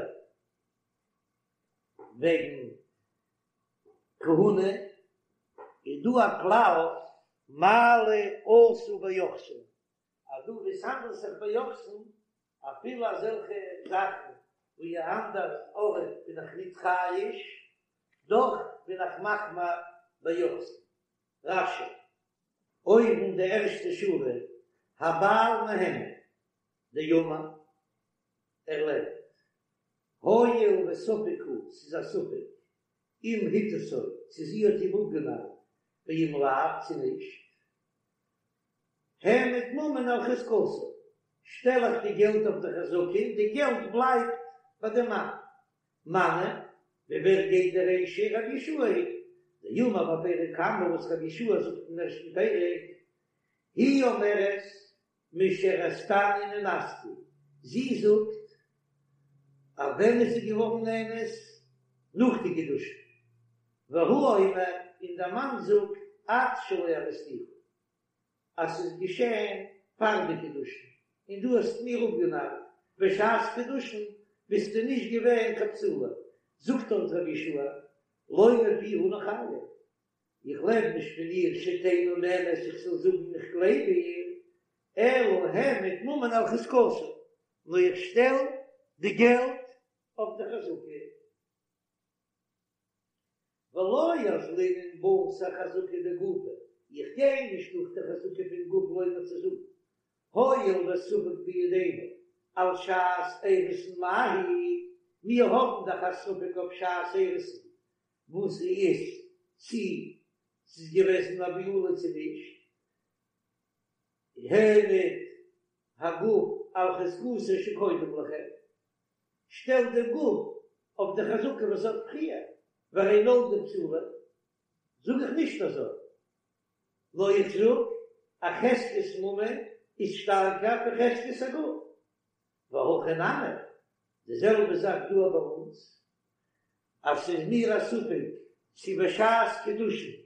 וועגן כהונה, איז דא א כלל מעלה עשו ביוחסין, אז דא וואו עס האנדלט זיך ביוחסין, אפילו אזעלכע זאכן וואו אן אנדער ארט בין איך ניט חייש, דאך בין איך מחמיר ביוחסין. רש"י. אויבן די ערשטע שורה, הבעל מהימן, דאמר, ער לערנט, הואיל וספק הוא, ס'איז א ספק, אם הטעתו, צו זי האט אים אפגענארט, ואם לאו, צו נישט. העמד ממון על חזקתו, שטעל איך די געלט אויף די חזקה און די געלט בלייבט ביי די מאן. מני, ווי ווער גייט די רישא? רבי יהושע היא דאמר בפרק קמא וואס רבי יהושע זאגט אין ערשטן פרק, היא אומרת משהרסתני נאנסתי, זי זאגט אז ווען איז זי געווארן נאנס? נאך די קידושין, והוא אומר און דער מאן זאגט עד שלא אריסתיך, אז ס'איז געשען פאר די קידושין און דו האסט מיר אפגענארט בשעת קידושין ביסטו נישט געווען קיין בתולה, זאגט דארט רבי יהושע לא מפיה אנו חיים, איך לעב נישט פון איר שתהא נאמנת איך זאל זאגן איך גלייב איר, אלא העמד ממון על חזקתו, נאר איך שטעל די געלט אויף די חזקה. ולא אזלינן בתר חזקה דגופא, איך גיי נישט נאך די חזקה פון גוף לומר צו זאגן, הואיל וספק בידינו על שעת אירוסין מהו, מיר האבן דאך א ספק אויף שעת אירוסין וואס איז צי ס'איז געוועזן א בעולה צו נישט, העמד הגוף על חזקתו שקודם לכן, שטעל דעם גוף אויף די חזקה וואס האט פריער, והרי נולדה בתולה, זאג איך נישט אזוי, נאר איך זאג אז חזקת ממון איז שטארקער פון חזקת הגוף, והכא נמי, די זעלבע זאך דא ביי אונז, אז ס'איז מיר א ספק צו בשעת קידושין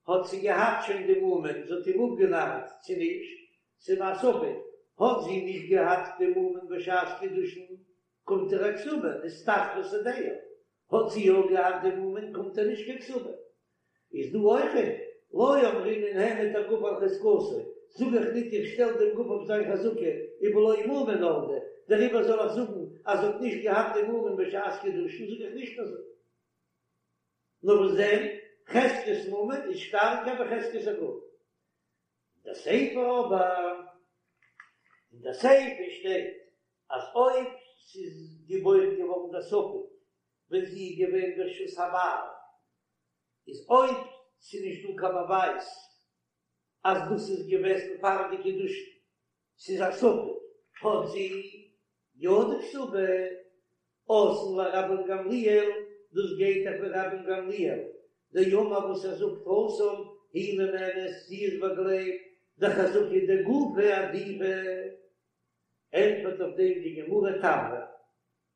האט זי געהאט שוין די מומין, זי האט אים אפגענארט צו נישט, ס'איז מיר א ספק, האט זי נישט געהאט די מומין בשעת קידושין, קומט איר א כתובה, נסתחפה שדהו, האט זי יא געהאט די מומין, קומט איר נישט קיין כתובה. איז דא אויכעט, לא אמרינן העמד הגוף על חזקתו, זאג איך ניט איך שטעל דעם גוף אויף זיין חזקה, ובלא מומין נולדה, דעריבער זאל איך זאגן אז זי האט נישט געהאט די מומין בשעת קידושין, זאג איך נישט אזוי. נאר וואס דען? חזקת ממון איז שטארקער ווי חזקת הגוף. אין די סיפא אבער, אין די סיפא שטייט אז אויב ס'איז געבוירן געווארן דער ספק ווען זי איז געווען ברשות הבעל, איז אויב ס'איז נישט דא קיין באווייז אז דאס איז געוועזן פאר די קידושין, ס'איז א ספק, האט זי יא די כתובה, אתאן לרבן גמליאל, דאס גייט דאך ווי רבן גמליאל, דאמר וואס ער זאגט התם היא נאמנת, זי איז באגלייבט, דחזקה דגופא עדיפא, ענטפערט אויף דעם די גמרא תברא,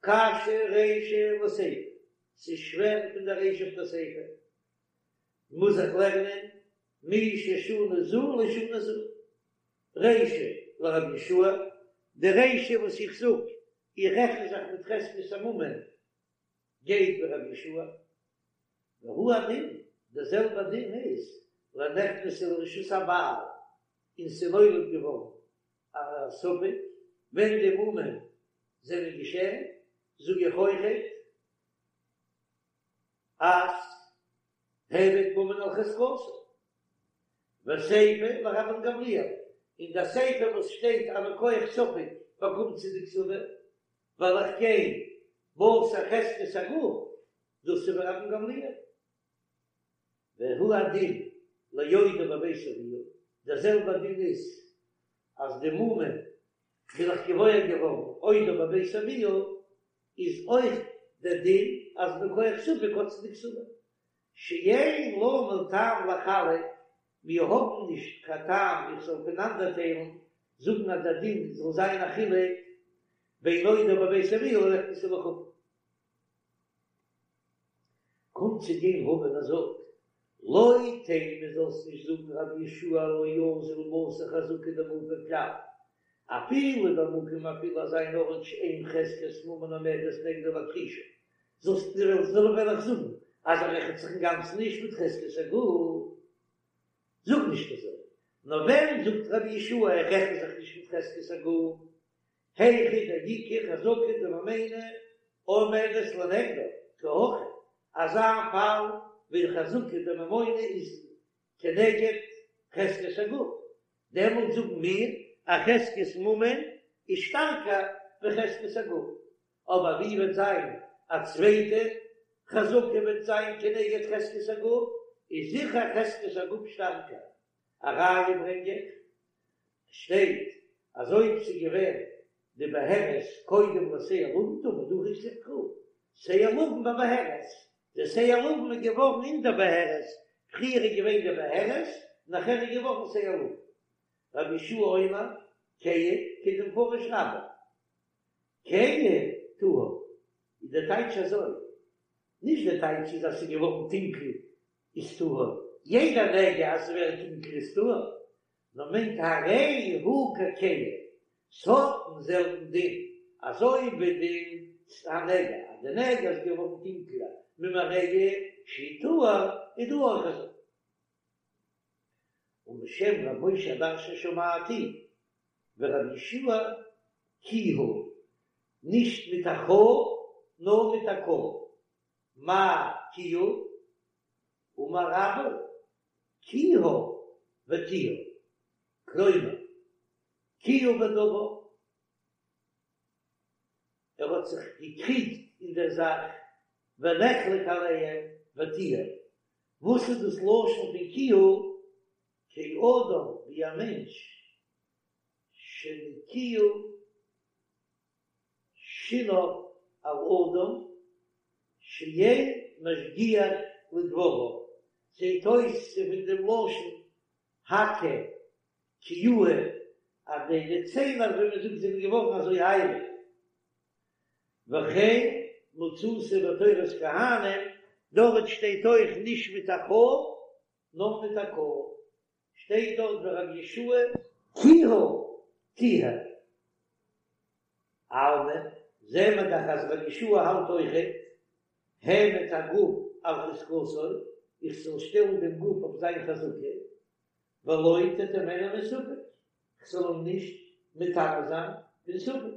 קשיא רישא לסיפא, ס'איז שווער פון די רישא אויף די סיפא, מוז איך לערנען מי ששנה זו לא שנה זו, רישא לרבי יהושע, די רישא וואס איך זאג, איך רעכן זיך מיט חזקת הממון, גייט ווי רבי יהושע, והוא הדין, דער זעלבער דין איז לנכנסה לרשות הבעל, און ס'איז נולד געווארן א ספק ווען די מומין זענען געשען, זאג איך אויכעט אז העמד ממון על חזקתו, וסיפא לרבן גמליאל, און די סיפא וואס שטייט אז מכח ספק באקומט זי די כתובה, ווייל איך גיי בתר חזקת הגוף, דאס איז ווי רבן גמליאל. והוא הדין לעודה בבית אביה, דער זעלבער דין איז אז די מומין בין איך געוואויר געווארן עודה בבית אביה, איז אויך דער דין אז מכח ספק האט זי די כתובה, שאין לנו טעם לחלק, מיר האבן נישט קיין טעם איך זאל פונאנדערטיילן, זאגן אז דער דין זאל זיין א חילוק בין עודה בבית אביה לנכנסה לחופה. קומט צו גיין רבא און ער זאגט, לא תימא זאלסט נישט זאגן רבי יהושע לא אזיל בתר חזקה דגופא כלל, אפילו במקום אפילו אזא אן ארט שאין חזקת ממון עומדת נגדה להכחישה, זאלסט זאל וועל איך זאגן אז ער רעכנט זיך אינגאנצן נישט מיט חזקת הגוף, זאג נישט אזוי, נאר ווען זאגט רבי יהושע ער רעכנט זיך נישט מיט חזקת הגוף, היכא דאיכא חזקה דממונא עומדת לנגדה, כי הכא, אזא פאל ווי חזקה דממונא איז כנגד חזקת הגוף, דעמאלט זאגן מיר אז חזקת ממון איז שטארקער ווי חזקת הגוף, אבער ווי וועט זיין א צווייטע חזקה וועט זיין כנגד חזקת הגוף, איז זיכער חזקת הגוף שטארקער, א ראיה ברענג איך, שטייט אז אויב ס'איז געווען די בהרת קודם לשער לבן טמא דהכי כתיב קרא שער לבן בבהרת, די שער לבן איז געווארן אין די בהרת, פריער איז געווען די בהרת נאכער איז געווארן שער לבן. רבי יהושע אומר כהה כדמפרש רבה כהה טהור איז די טייטש אזוי, נישט די טייטש איז אז ס'איז געווארן טונקל איז טהור, יעדע נגע אז ס'ווערט טונקל איז טהור, נאר מיינט הרי הוא ככהה, ס'האט דעם זעלבן דין אזוי ווי די הנגע, אז די נגע איז געווארן טונקלער ממראהו שהוא טהור, איז דא אויך אזוי. ומשם ר' משה הדרשן שמעתי ורבי יהושע כיהה, נישט מיט א ח נאר מיט א כ, מאי כיהה? אמר רבה כיהה וטיהר, כלומר, כיהה בדבר, ער האט זיך געקריגט אין דער זאך, ונחלק עליהם וטיהר, וואס איז דאס לשון פון כיהה? כאדם ווי א מענטש שנקיעו שיניו על אדם שאין משגיח לדבריו, זעט אויס ס'איז פון דעם לשון הקהה כיהה אז די די ציין אזוי ווי מ'זאגט זענען געווארן אזוי הייליג, וכן מצאתי בתורת כהנים, דארט שטייט אויך נישט מיט א ח נאר מיט א כ, שטייט דארט ורבי יהושע כיהה טיהר. אלמא, זעהן מיר דאך אז רבי יהושע האלט אויכעט העמד הגוף על חזקתו, איך זאל שטעלן דעם גוף אויף זיין חזקה, ולא תטמאנו מספק, כ'זאל אים נישט מטמא זיין פון ספק.